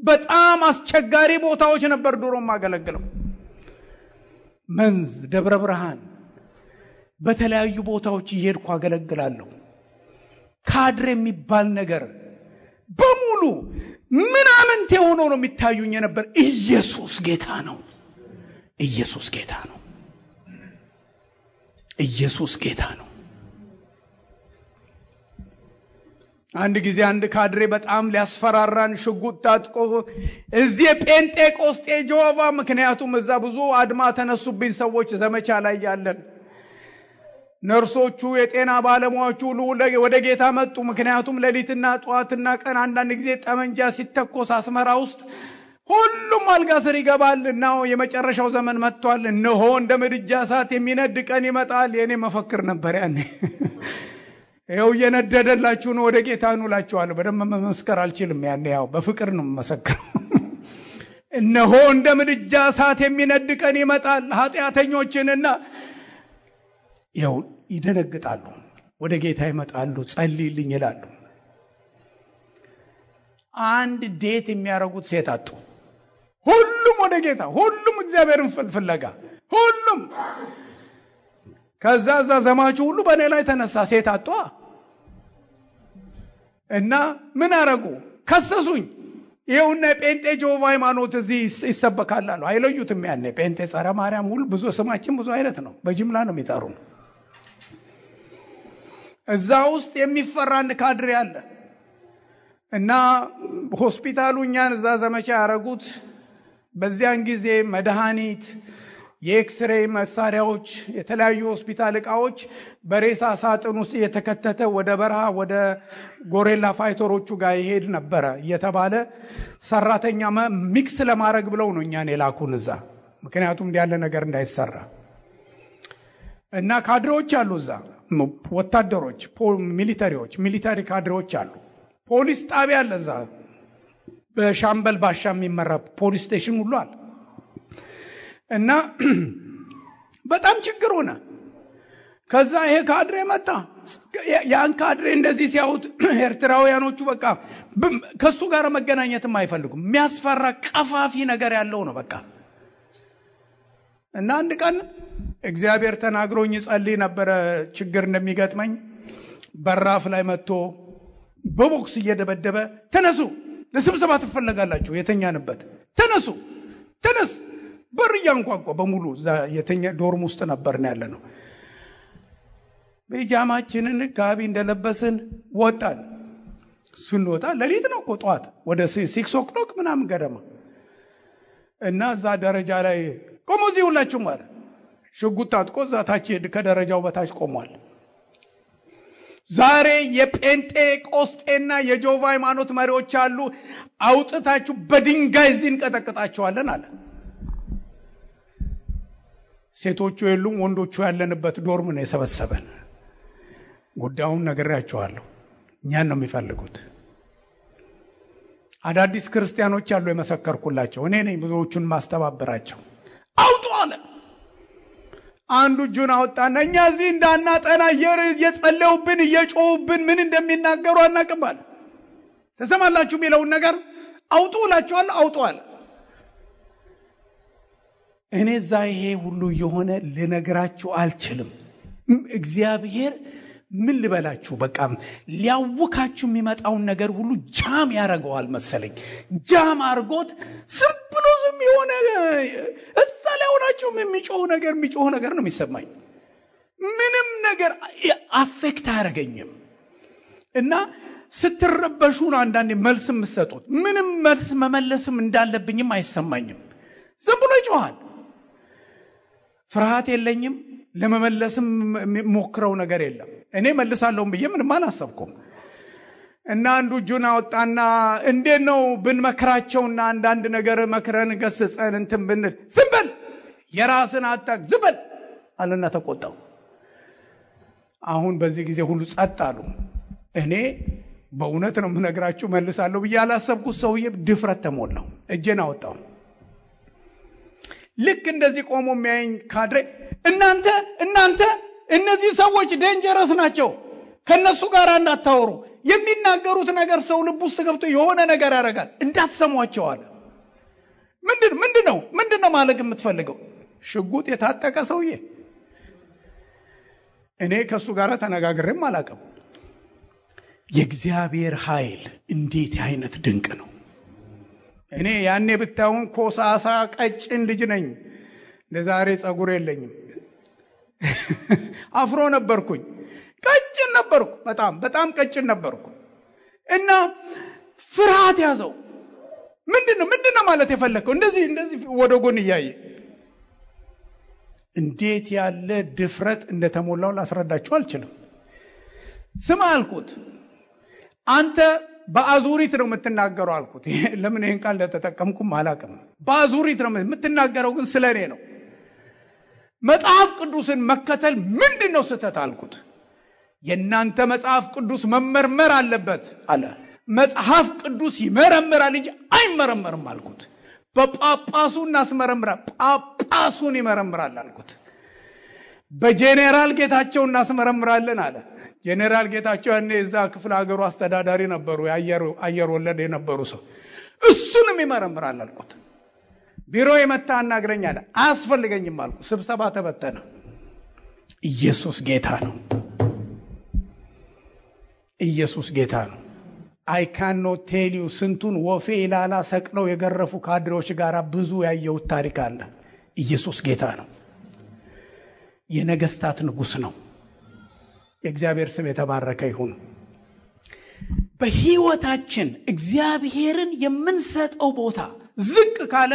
በጣም አስቸጋሪ ቦታዎች ነበር ድሮ ማገለግለው። መንዝ፣ ደብረ ብርሃን፣ በተለያዩ ቦታዎች እየሄድኩ አገለግላለሁ። ካድሬ የሚባል ነገር በሙሉ ምናምንቴ ሆኖ ነው የሚታዩኝ ነበር። ኢየሱስ ጌታ ነው። ኢየሱስ ጌታ ነው። ኢየሱስ ጌታ ነው። አንድ ጊዜ አንድ ካድሬ በጣም ሊያስፈራራን ሽጉጥ ታጥቆ እዚህ ጴንጤቆስጤ ጆቫ፣ ምክንያቱም እዛ ብዙ አድማ ተነሱብኝ ሰዎች ዘመቻ ላይ ያለን ነርሶቹ፣ የጤና ባለሙያዎቹ ወደ ጌታ መጡ። ምክንያቱም ሌሊትና ጧትና ቀን አንዳንድ ጊዜ ጠመንጃ ሲተኮስ አስመራ ውስጥ ሁሉም አልጋ ስር ይገባልና የመጨረሻው ዘመን መጥቷል፣ እነሆ እንደ ምድጃ እሳት የሚነድ ቀን ይመጣል። የኔ መፈክር ነበር ያኔ። ይኸው እየነደደላችሁ ነው፣ ወደ ጌታ ኑ እላችኋለሁ። በደንብ መመስከር አልችልም ያኔ፣ ያው በፍቅር ነው መመስከረው። እነሆ እንደ ምድጃ እሳት የሚነድ ቀን ይመጣል። ኃጢአተኞችንና ያው ይደነግጣሉ፣ ወደ ጌታ ይመጣሉ፣ ጸልይልኝ ይላሉ። አንድ ዴት የሚያረጉት ሴት አጡ። ሁሉም ወደ ጌታ፣ ሁሉም እግዚአብሔርን ፍለጋ፣ ሁሉም። ከዛ ዘማቹ ሁሉ በእኔ ላይ ተነሳ። ሴት አጧ እና ምን አረጉ? ከሰሱኝ። ይኸውና የጴንጤ ጆቫ ሃይማኖት እዚህ ይሰበካል አሉ። አይለዩትም። ያኔ ጴንጤ፣ ጸረ ማርያም፣ ሁሉ ብዙ ስማችን ብዙ አይነት ነው። በጅምላ ነው የሚጠሩ። እዛ ውስጥ የሚፈራ አንድ ካድሬ አለ እና ሆስፒታሉ እኛን እዛ ዘመቻ ያረጉት። በዚያን ጊዜ መድኃኒት፣ የኤክስሬይ መሳሪያዎች፣ የተለያዩ ሆስፒታል ዕቃዎች በሬሳ ሳጥን ውስጥ እየተከተተ ወደ በረሃ ወደ ጎሬላ ፋይተሮቹ ጋር ይሄድ ነበረ እየተባለ ሰራተኛ ሚክስ ለማድረግ ብለው ነው እኛን የላኩን እዛ። ምክንያቱም እንዲህ ያለ ነገር እንዳይሰራ እና ካድሬዎች አሉ እዛ፣ ወታደሮች፣ ሚሊታሪ ካድሬዎች አሉ። ፖሊስ ጣቢያ አለ እዛ፣ በሻምበል ባሻ የሚመራ ፖሊስ ስቴሽን ሁሉ አለ። እና በጣም ችግር ሆነ። ከዛ ይሄ ካድሬ መጣ። ያን ካድሬ እንደዚህ ሲያዩት ኤርትራውያኖቹ በቃ ከሱ ጋር መገናኘትም አይፈልጉም። የሚያስፈራ ቀፋፊ ነገር ያለው ነው በቃ። እና አንድ ቀን እግዚአብሔር ተናግሮኝ ጸልይ ነበረ ችግር እንደሚገጥመኝ። በራፍ ላይ መጥቶ በቦክስ እየደበደበ ተነሱ፣ ለስብሰባ ትፈለጋላችሁ፣ የተኛንበት ተነስ። በር ያንኳኳ በሙሉ የተኛ ዶርም ውስጥ ነበርና ያለ ነው። በጃማችንን ጋቢ እንደለበስን ወጣን። ስንወጣ ሌሊት ነው እኮ ጠዋት ወደ 6 o'clock ምናምን ገደማ እና እዛ ደረጃ ላይ ቆሞ እዚህ ሁላችሁ ማለት ሽጉጥ ታጥቆ እዛ ታች ከደረጃው በታች ቆሟል። ዛሬ የጴንጤቆስጤና የጆቫ ሃይማኖት መሪዎች አሉ፣ አውጥታችሁ በድንጋይ እዚህ እንቀጠቅጣቸዋለን አለ። ሴቶቹ የሉም፣ ወንዶቹ ያለንበት ዶርም ነው የሰበሰበን። ጉዳዩን ነግሬያቸዋለሁ። እኛን ነው የሚፈልጉት። አዳዲስ ክርስቲያኖች አሉ የመሰከርኩላቸው፣ እኔ ነኝ ብዙዎቹን ማስተባበራቸው። አውጡ አለ። አንዱ እጁን አወጣና እኛ እዚህ እንዳናጠና እየጸለዩብን እየጮሁብን ምን እንደሚናገሩ አናውቅም አለ። ተሰማላችሁ የሚለውን ነገር አውጡ እላችኋለሁ፣ አውጡ አለ። እኔ እዛ ይሄ ሁሉ የሆነ ልነግራችሁ አልችልም። እግዚአብሔር ምን ልበላችሁ፣ በቃ ሊያውካችሁ የሚመጣውን ነገር ሁሉ ጃም ያደርገዋል መሰለኝ። ጃም አርጎት ዝም ብሎ ዝም የሆነ እዛ ላይ ሆናችሁ የሚጮህ ነገር ነው የሚሰማኝ። ምንም ነገር አፌክት አያደርገኝም። እና ስትረበሹ ነው አንዳንዴ መልስ የምትሰጡት። ምንም መልስ መመለስም እንዳለብኝም አይሰማኝም። ዝም ብሎ ይጮሃል። ፍርሃት የለኝም፣ ለመመለስም ሞክረው ነገር የለም። እኔ መልሳለሁ ብዬ ምንም አላሰብኩም። እና አንዱ እጁን አወጣና እንዴት ነው ብንመክራቸውና አንዳንድ ነገር መክረን ገስጸን እንትን ብንል ዝም በል የራስን አታክ ዝም በል አለና ተቆጣው። አሁን በዚህ ጊዜ ሁሉ ጸጥ አሉ። እኔ በእውነት ነው የምነግራችሁ መልሳለሁ ብዬ አላሰብኩት። ሰውዬ ድፍረት ተሞላው። እጄን አወጣው። ልክ እንደዚህ ቆሞ የሚያየኝ ካድሬ እናንተ እነዚህ ሰዎች ዴንጀረስ ናቸው፣ ከነሱ ጋር እንዳታወሩ፣ የሚናገሩት ነገር ሰው ልብ ውስጥ ገብቶ የሆነ ነገር ያደርጋል፣ እንዳትሰሟቸው አለ። ምንድነው ማለት የምትፈልገው? ሽጉጥ የታጠቀ ሰውዬ። እኔ ከሱ ጋር ተነጋግሬም አላውቅም። የእግዚአብሔር ኃይል እንዴት አይነት ድንቅ ነው! እኔ ያኔ ብታዩን ኮሳሳ ቀጭን ልጅ ነኝ። ለዛሬ ጸጉር የለኝም። አፍሮ ነበርኩኝ። ቀጭን ነበርኩ። በጣም ቀጭን ነበርኩ። እና ፍርሃት ያዘው። ምንድነው ማለት የፈለከው? እንደዚህ ወደ ጎን እያየ እንዴት ያለ ድፍረት እንደተሞላው ላስረዳችሁ አልችልም። ስማ አልኩት፣ አንተ በአዙሪት ነው የምትናገረው አልኩት። ለምን ይሄን ቃል ለተጠቀምኩም አላውቅም። በአዙሪት ነው የምትናገረው፣ ግን ስለኔ ነው። መጽሐፍ ቅዱስን መከተል ምንድነው ስህተት አልኩት። የእናንተ መጽሐፍ ቅዱስ መመርመር አለበት አለ። መጽሐፍ ቅዱስ ይመረምራል እንጂ አይመረመርም አልኩት። በጳጳሱ እናስመረምራል፣ ጳጳሱን ይመረምራል አልኩት። በጄኔራል ጌታቸው እናስመረምራለን አለ። ጄኔራል ጌታቸው ያኔ እዛ ክፍለ ሀገሩ አስተዳዳሪ ነበሩ፣ አየር ወለድ የነበሩ ሰው። እሱንም ይመረምራል አልኩት። ቢሮ የመጣ አናግረኝ አለ። አያስፈልገኝም አልኩ። ስብሰባ ተበተነ። ኢየሱስ ጌታ ነው። ኢየሱስ ጌታ ነው። I cannot tell you ስንቱን ወፌ ኢላላ ሰቅለው የገረፉ ካድሬዎች ጋር ብዙ ያየሁት ታሪክ አለ። ኢየሱስ ጌታ ነው። የነገስታት ንጉስ ነው። የእግዚአብሔር ስም የተባረከ ይሁን። በህይወታችን እግዚአብሔርን የምንሰጠው ቦታ ዝቅ ካለ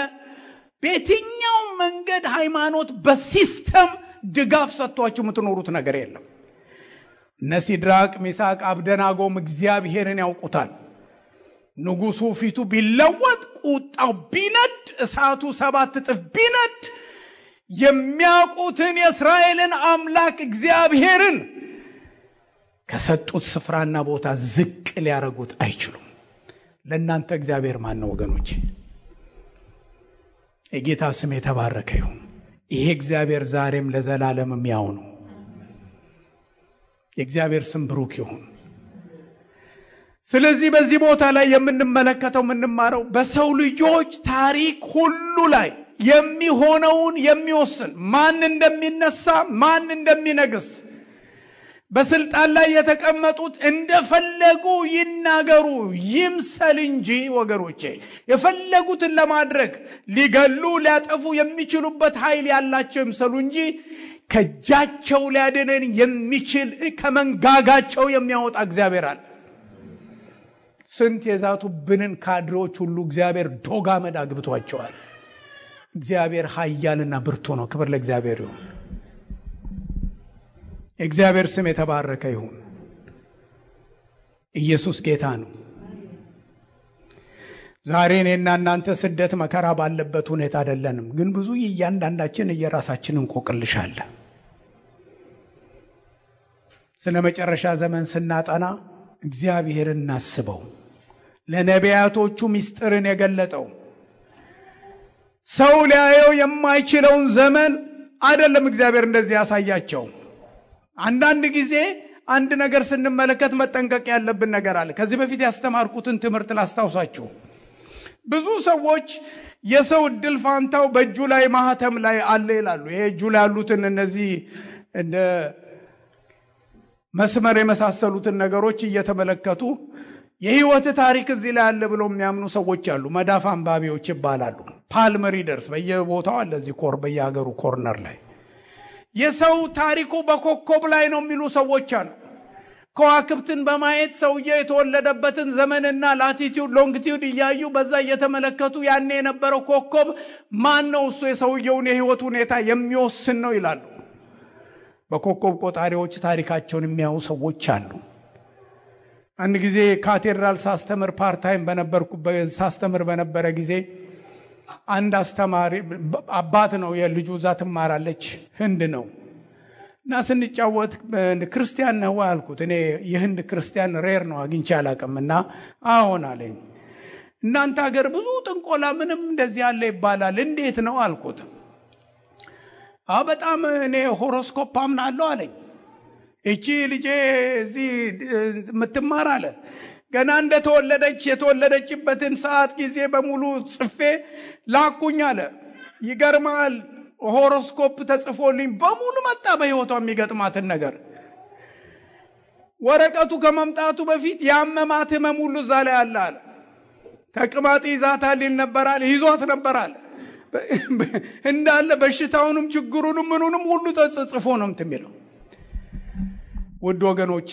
በየትኛው መንገድ ሃይማኖት በሲስተም ድጋፍ ሰጥቷችሁ የምትኖሩት ነገር የለም። ሲድራቅ ሚሳቅ አብደናጎም እግዚአብሔርን ያውቁታል። ንጉሱ ፊቱ ቢለወጥ፣ ቁጣው ቢነድ፣ እሳቱ 7 እጥፍ ቢነድ የሚያውቁትን የእስራኤልን አምላክ እግዚአብሔርን ከሰጡት ስፍራና ቦታ ዝቅ ሊያረጉት አይችሉም። ለእናንተ እግዚአብሔር ማን ነው ወገኖች? የጌታ ስም የተባረከ ይሁን። ይሄ እግዚአብሔር ዛሬም ለዘላለምም ያው ነው። የእግዚአብሔር ስም ብሩክ ይሁን። ስለዚህ በዚህ ቦታ ላይ የምንመለከተው የምንማረው በሰው ልጆች ታሪክ ሁሉ ላይ የሚሆነውን የሚወስን ማን እንደሚነሳ ማን እንደሚነግስ በስልጣን ላይ የተቀመጡት እንደፈለጉ ይናገሩ ይምሰል እንጂ ወገኖቼ የፈለጉትን ለማድረግ ሊገሉ ሊያጠፉ የሚችሉበት ኃይል ያላቸው ይምሰሉ እንጂ ከጃቸው ሊያድነን የሚችል ከመንጋጋቸው የሚያወጣ እግዚአብሔር አለ። ስንት የዛቱብንን ካድሬዎች ሁሉ እግዚአብሔር ዶጋመድ አግብቷቸዋል። እግዚአብሔር ኃያልና ብርቱ ነው። ክብር ለእግዚአብሔር ይሁን። እግዚአብሔር ስም የተባረከ ይሁን። ኢየሱስ ጌታ ነው። ዛሬ እኔና እናንተ ስደት መከራ ባለበት ሁኔታ አይደለንም፣ ግን ብዙ እያንዳንዳችን የራሳችንን እንቆቅልሻለን። ስለ መጨረሻ ዘመን ስናጠና እግዚአብሔርን እናስበው። ለነቢያቶቹ ምስጢርን የገለጠው ሰው ሊያየው የማይችለውን ዘመን አይደለም እግዚአብሔር እንደዚህ ያሳያቸው። አንዳንድ ጊዜ አንድ ነገር ስንመለከት መጠንቀቅ ያለብን ነገር አለ። ከዚህ በፊት ያስተማርኩትን ትምህርት ላስታውሳችሁ። ብዙ ሰዎች የሰው እድል ፋንታው በእጁ ላይ ማህተም ላይ አለ ይላሉ። ይሄ እጁ ላይ ያሉትን እነዚህ እንደ መስመር የመሳሰሉትን ነገሮች እየተመለከቱ የህይወት ታሪክ እዚህ ላይ አለ ብለው የሚያምኑ ሰዎች አሉ። መዳፍ አንባቢዎች ይባላሉ። ፓልም ሪደርስ በየቦታው አለ። እዚህ በየሀገሩ ኮርነር ላይ የሰው ታሪኩ በኮከብ ላይ ነው የሚሉ ሰዎች አሉ። ከዋክብትን በማየት ሰውየው የተወለደበትን ዘመንና ላቲቲዩድ ሎንጊቲዩድ እያዩ በዛ እየተመለከቱ ያኔ የነበረው ኮከብ ማን ነው እሱ የሰውየውን የህይወት ሁኔታ የሚወስን ነው ይላሉ። በኮከብ ቆጣሪዎች ታሪካቸውን የሚያዩ ሰዎች አሉ። አንድ ጊዜ ካቴድራል ሳስተምር ፓርታይም ሳስተምር በነበረ ጊዜ አንድ አስተማሪ አባት ነው፣ የልጁ እዛ ትማራለች፣ ህንድ ነው እና ስንጫወት ክርስቲያን ነው አልኩት። እኔ የህንድ ክርስቲያን ሬር ነው አግኝቼ አላውቅምና አዎን አለኝ። እናንተ ሀገር ብዙ ጥንቆላ ምንም እንደዚህ ያለ ይባላል እንዴት ነው አልኩት። በጣም እኔ ሆሮስኮፕ አምናለሁ አለኝ። እቺ ልጄ እዚህ የምትማር አለ ገና እንደተወለደች የተወለደችበትን ሰዓት ጊዜ በሙሉ ጽፌ ላኩኝ አለ። ይገርማል፣ ሆሮስኮፕ ተጽፎልኝ በሙሉ መጣ በህይወቷ የሚገጥማትን ነገር። ወረቀቱ ከመምጣቱ በፊት ያመማት ህመም ሁሉ እዛ ላይ አለ አለ። ተቅማጥ ይዛታል ነበራል፣ ይዟት ነበራል እንዳለ በሽታውንም ችግሩንም ምኑንም ሁሉ ተጽፎ ነው የሚለው። ውድ ወገኖቼ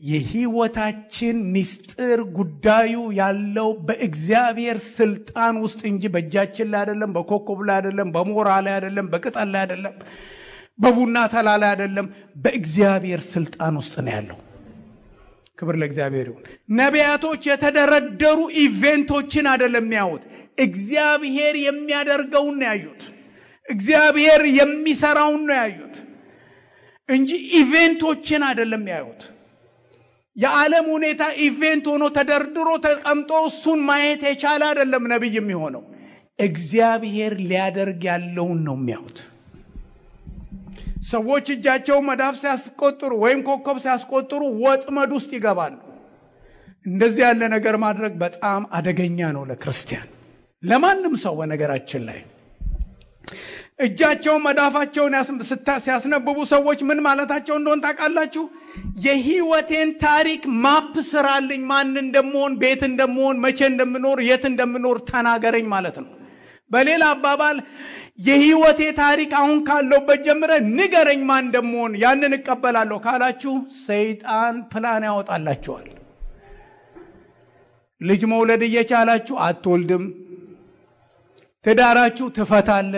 የህይወታችን ምስጢር ጉዳዩ ያለው በእግዚአብሔር ስልጣን ውስጥ እንጂ በእጃችን ላይ አይደለም፣ በኮከብ ላይ አይደለም፣ በሞራ ላይ አይደለም፣ በቅጠል ላይ አይደለም፣ በቡና ተላ ላይ አይደለም። በእግዚአብሔር ስልጣን ውስጥ ነው ያለው። ክብር ለእግዚአብሔር ይሁን። ነቢያቶች የተደረደሩ ኢቨንቶችን አይደለም የሚያዩት፣ እግዚአብሔር የሚያደርገውን ነው ያዩት። እግዚአብሔር የሚሰራውን ነው ያዩት እንጂ ኢቨንቶችን አይደለም ያዩት። የዓለም ሁኔታ ኢቨንት ሆኖ ተደርድሮ ተቀምጦ እሱን ማየት የቻለ አይደለም ነብይ የሚሆነው። እግዚአብሔር ሊያደርግ ያለውን ነው የሚያዩት። ሰዎች እጃቸው መዳፍ ሲያስቆጥሩ ወይም ኮከብ ሲያስቆጥሩ ወጥመድ ውስጥ ይገባሉ። እንደዚህ ያለ ነገር ማድረግ በጣም አደገኛ ነው ለክርስቲያን፣ ለማንም ሰው። በነገራችን ላይ እጃቸው መዳፋቸውን ሲያስነብቡ ሰዎች ምን ማለታቸው እንደሆነ ታውቃላችሁ? የህይወቴን ታሪክ ማፕ ስራልኝ፣ ማን እንደምሆን፣ ቤት እንደምሆን፣ መቼ እንደምኖር፣ የት እንደምኖር ተናገረኝ ማለት ነው። በሌላ አባባል የህይወቴ ታሪክ አሁን ካለውበት ጀምረ ንገረኝ ማን እንደምሆን፣ ያንን እቀበላለሁ ካላችሁ ሰይጣን ፕላን ያወጣላችኋል። ልጅ መውለድ እየቻላችሁ አትወልድም፣ ትዳራችሁ ትፈታለ፣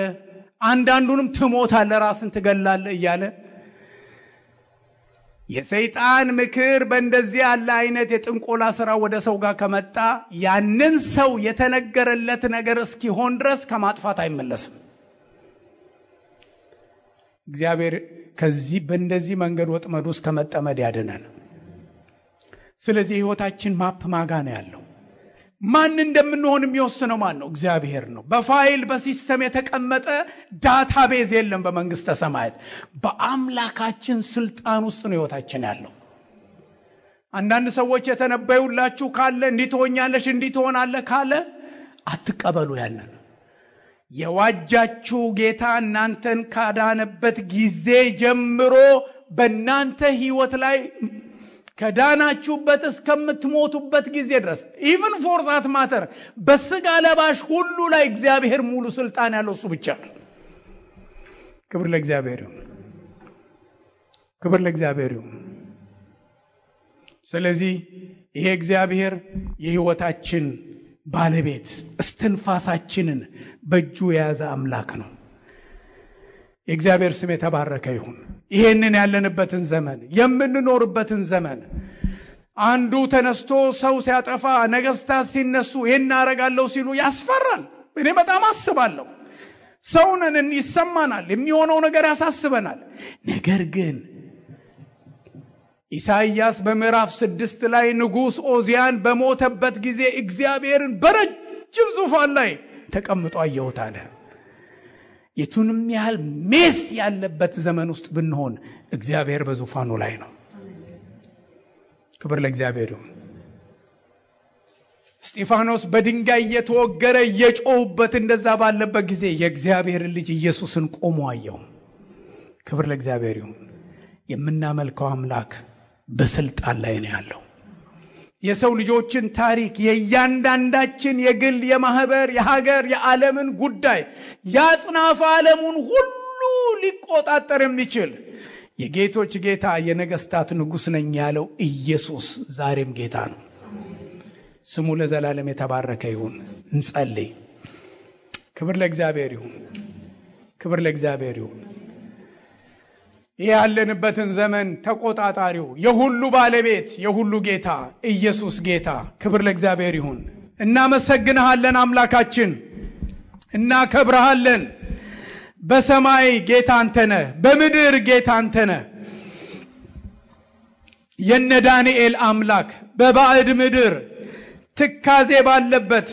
አንዳንዱንም ትሞታለ፣ ራስን ትገላለ እያለ የሰይጣን ምክር በእንደዚህ ያለ አይነት የጥንቆላ ስራ ወደ ሰው ጋር ከመጣ ያንን ሰው የተነገረለት ነገር እስኪሆን ድረስ ከማጥፋት አይመለስም። እግዚአብሔር ከዚህ በእንደዚህ መንገድ ወጥመድ ውስጥ ከመጠመድ ያድነን። ስለዚህ ህይወታችን ማፕ ማጋ ነው ያለው። ማን እንደምንሆን የሚወስነው ማን ነው? እግዚአብሔር ነው። በፋይል በሲስተም የተቀመጠ ዳታቤዝ የለም በመንግስተ ሰማያት። በአምላካችን ስልጣን ውስጥ ነው ህይወታችን ያለው። አንዳንድ ሰዎች የተነበዩላችሁ ካለ እንዲህ ትሆኛለሽ እንዲህ ትሆናለህ ካለ አትቀበሉ። ያንን የዋጃችሁ ጌታ እናንተን ካዳነበት ጊዜ ጀምሮ በእናንተ ህይወት ላይ ከዳናችሁበት እስከምትሞቱበት ጊዜ ድረስ even for that matter በስጋ ለባሽ ሁሉ ላይ እግዚአብሔር ሙሉ ስልጣን ያለው እሱ ብቻ ነው። ክብር ለእግዚአብሔር ይሁን። ክብር ለእግዚአብሔር ይሁን። ስለዚህ ይሄ እግዚአብሔር የህይወታችን ባለቤት እስትንፋሳችንን በእጁ የያዘ አምላክ ነው። የእግዚአብሔር ስም የተባረከ ይሁን። ይሄንን ያለንበትን ዘመን የምንኖርበትን ዘመን አንዱ ተነስቶ ሰው ሲያጠፋ ነገስታት ሲነሱ ይሄን አረጋለሁ ሲሉ ያስፈራል። እኔ በጣም አስባለሁ። ሰውነን ይሰማናል፣ የሚሆነው ነገር ያሳስበናል። ነገር ግን ኢሳይያስ በምዕራፍ 6 ላይ ንጉስ ኦዚያን በሞተበት ጊዜ እግዚአብሔርን በረጅም ዙፋን ላይ ተቀምጦ አየሁት አለ። የቱንም ያህል ሜስ ያለበት ዘመን ውስጥ ብንሆን እግዚአብሔር በዙፋኑ ላይ ነው። ክብር ለእግዚአብሔር ይሁን። እስጢፋኖስ በድንጋይ እየተወገረ እየጮህበት እንደዛ ባለበት ጊዜ የእግዚአብሔር ልጅ ኢየሱስን ቆሞ አየው። ክብር ለእግዚአብሔር ይሁን። የምናመልከው አምላክ በስልጣን ላይ ነው ያለው። የሰው ልጆችን ታሪክ የእያንዳንዳችን የግል የማህበር የሀገር የዓለምን ጉዳይ ያጽናፈ ዓለሙን ሁሉ ሊቆጣጠር የሚችል የጌቶች ጌታ የነገስታት ንጉሥ ነኝ ያለው ኢየሱስ ዛሬም ጌታ ነው። ስሙ ለዘላለም የተባረከ ይሁን። እንጸልይ። ክብር ለእግዚአብሔር ይሁን። ክብር ለእግዚአብሔር ይሁን። ያለንበትን ዘመን ተቆጣጣሪው የሁሉ ባለቤት የሁሉ ጌታ ኢየሱስ ጌታ፣ ክብር ለእግዚአብሔር ይሁን። እናመሰግንሃለን አምላካችን፣ እናከብርሃለን። በሰማይ ጌታ አንተ ነህ፣ በምድር ጌታ አንተ ነህ። የነ ዳንኤል አምላክ በባዕድ ምድር ትካዜ ባለበት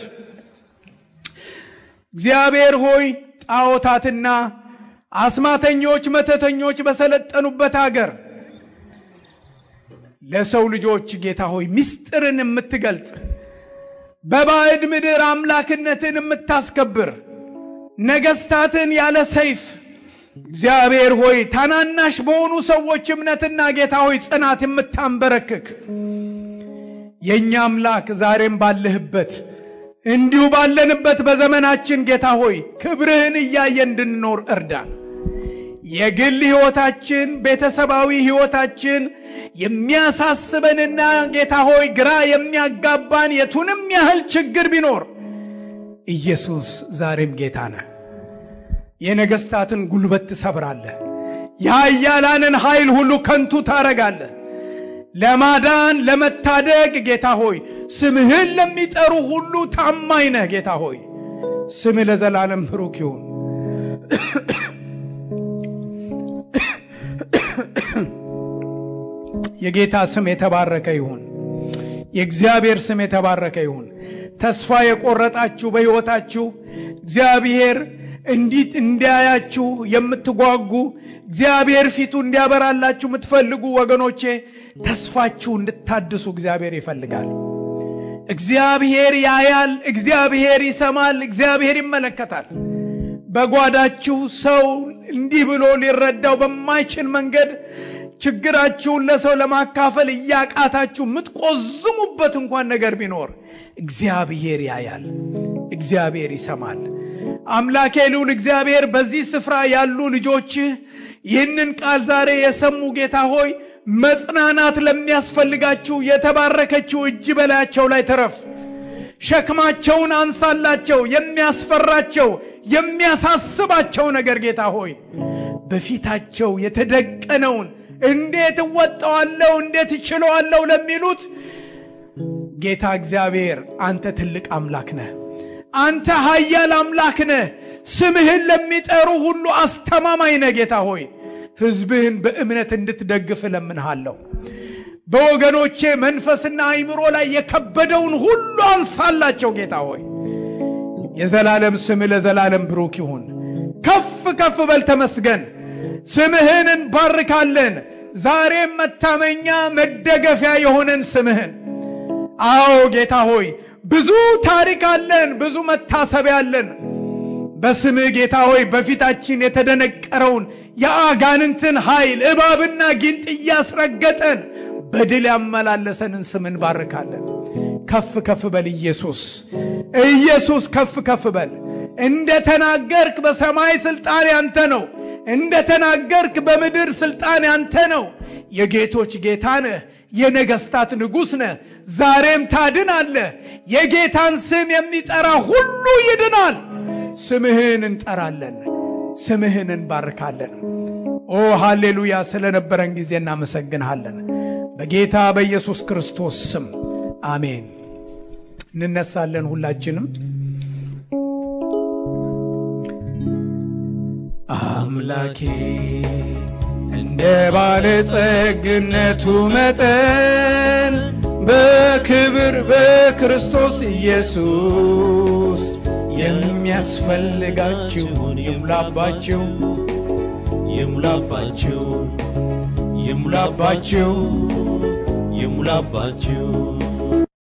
እግዚአብሔር ሆይ ጣዖታትና አስማተኞች መተተኞች በሰለጠኑበት ሀገር ለሰው ልጆች ጌታ ሆይ ምስጢርን የምትገልጽ በባዕድ ምድር አምላክነትን የምታስከብር ነገስታትን ያለ ሰይፍ እግዚአብሔር ሆይ ታናናሽ በሆኑ ሰዎች እምነትና ጌታ ሆይ ጽናት የምታንበረክክ የኛ አምላክ ዛሬም ባለህበት እንዲሁ ባለንበት በዘመናችን ጌታ ሆይ ክብርህን እያየን እንድንኖር እርዳን። የግል ህይወታችን ቤተሰባዊ ህይወታችን የሚያሳስበንና ጌታ ሆይ ግራ የሚያጋባን የቱንም ያህል ችግር ቢኖር ኢየሱስ ዛሬም ጌታ ነህ። የነገስታትን ጉልበት ትሰብራለህ። የኃያላንን ኃይል ሁሉ ከንቱ ታረጋለህ። ለማዳን ለመታደግ ጌታ ሆይ ስምህን ለሚጠሩ ሁሉ ታማኝ ነህ። ጌታ ሆይ ስምህ ለዘላለም ብሩክ ይሁን። የጌታ ስም የተባረከ ይሁን። የእግዚአብሔር ስም የተባረከ ይሁን። ተስፋ የቆረጣችሁ በሕይወታችሁ እግዚአብሔር እንዲያያችሁ የምትጓጉ እግዚአብሔር ፊቱ እንዲያበራላችሁ የምትፈልጉ ወገኖቼ ተስፋችሁ እንድታድሱ እግዚአብሔር ይፈልጋል። እግዚአብሔር ያያል፣ እግዚአብሔር ይሰማል፣ እግዚአብሔር ይመለከታል። በጓዳችሁ ሰው እንዲህ ብሎ ሊረዳው በማይችል መንገድ ችግራችሁን ለሰው ለማካፈል እያቃታችሁ የምትቆዝሙበት እንኳን ነገር ቢኖር እግዚአብሔር ያያል፣ እግዚአብሔር ይሰማል። አምላኬ ልዑል እግዚአብሔር በዚህ ስፍራ ያሉ ልጆች ይህንን ቃል ዛሬ የሰሙ ጌታ ሆይ መጽናናት ለሚያስፈልጋችሁ የተባረከችው እጅ በላያቸው ላይ ተረፍ። ሸክማቸውን አንሳላቸው። የሚያስፈራቸው የሚያሳስባቸው ነገር ጌታ ሆይ በፊታቸው የተደቀነውን እንዴት እወጣዋለሁ እንዴት እችለዋለሁ ለሚሉት ጌታ እግዚአብሔር አንተ ትልቅ አምላክ ነህ። አንተ ኃያል አምላክ ነህ። ስምህን ለሚጠሩ ሁሉ አስተማማኝ ነህ። ጌታ ሆይ ሕዝብህን በእምነት እንድትደግፍ ለምንሃለሁ። በወገኖቼ መንፈስና አይምሮ ላይ የከበደውን ሁሉ አንሳላቸው። ጌታ ሆይ የዘላለም ስምህ ለዘላለም ብሩክ ይሁን። ከፍ ከፍ በል ተመስገን። ስምህን እንባርካለን። ዛሬም መታመኛ መደገፊያ የሆነን ስምህን አዎ ጌታ ሆይ ብዙ ታሪክ አለን፣ ብዙ መታሰቢያ አለን። በስምህ ጌታ ሆይ በፊታችን የተደነቀረውን የአጋንንትን ኃይል እባብና ጊንጥ እያስረገጠን በድል ያመላለሰንን ስምን ባርካለን። ከፍ ከፍ በል ኢየሱስ፣ ኢየሱስ ከፍ ከፍ በል። እንደተናገርክ በሰማይ ስልጣን ያንተ ነው፣ እንደተናገርክ በምድር ስልጣን ያንተ ነው። የጌቶች ጌታ ነህ፣ የነገስታት ንጉሥ ነህ። ዛሬም ታድናለህ። የጌታን ስም የሚጠራ ሁሉ ይድናል። ስምህን እንጠራለን፣ ስምህን እንባርካለን። ኦ ሃሌሉያ! ስለነበረን ጊዜ እናመሰግንሃለን። በጌታ በኢየሱስ ክርስቶስ ስም አሜን። እንነሳለን ሁላችንም። አምላኬ እንደ ባለጸግነቱ መጠን በክብር በክርስቶስ ኢየሱስ የሚያስፈልጋችሁን ይሙላባችሁ ይሙላባችሁ ይሙላባችሁ ይሙላባችሁ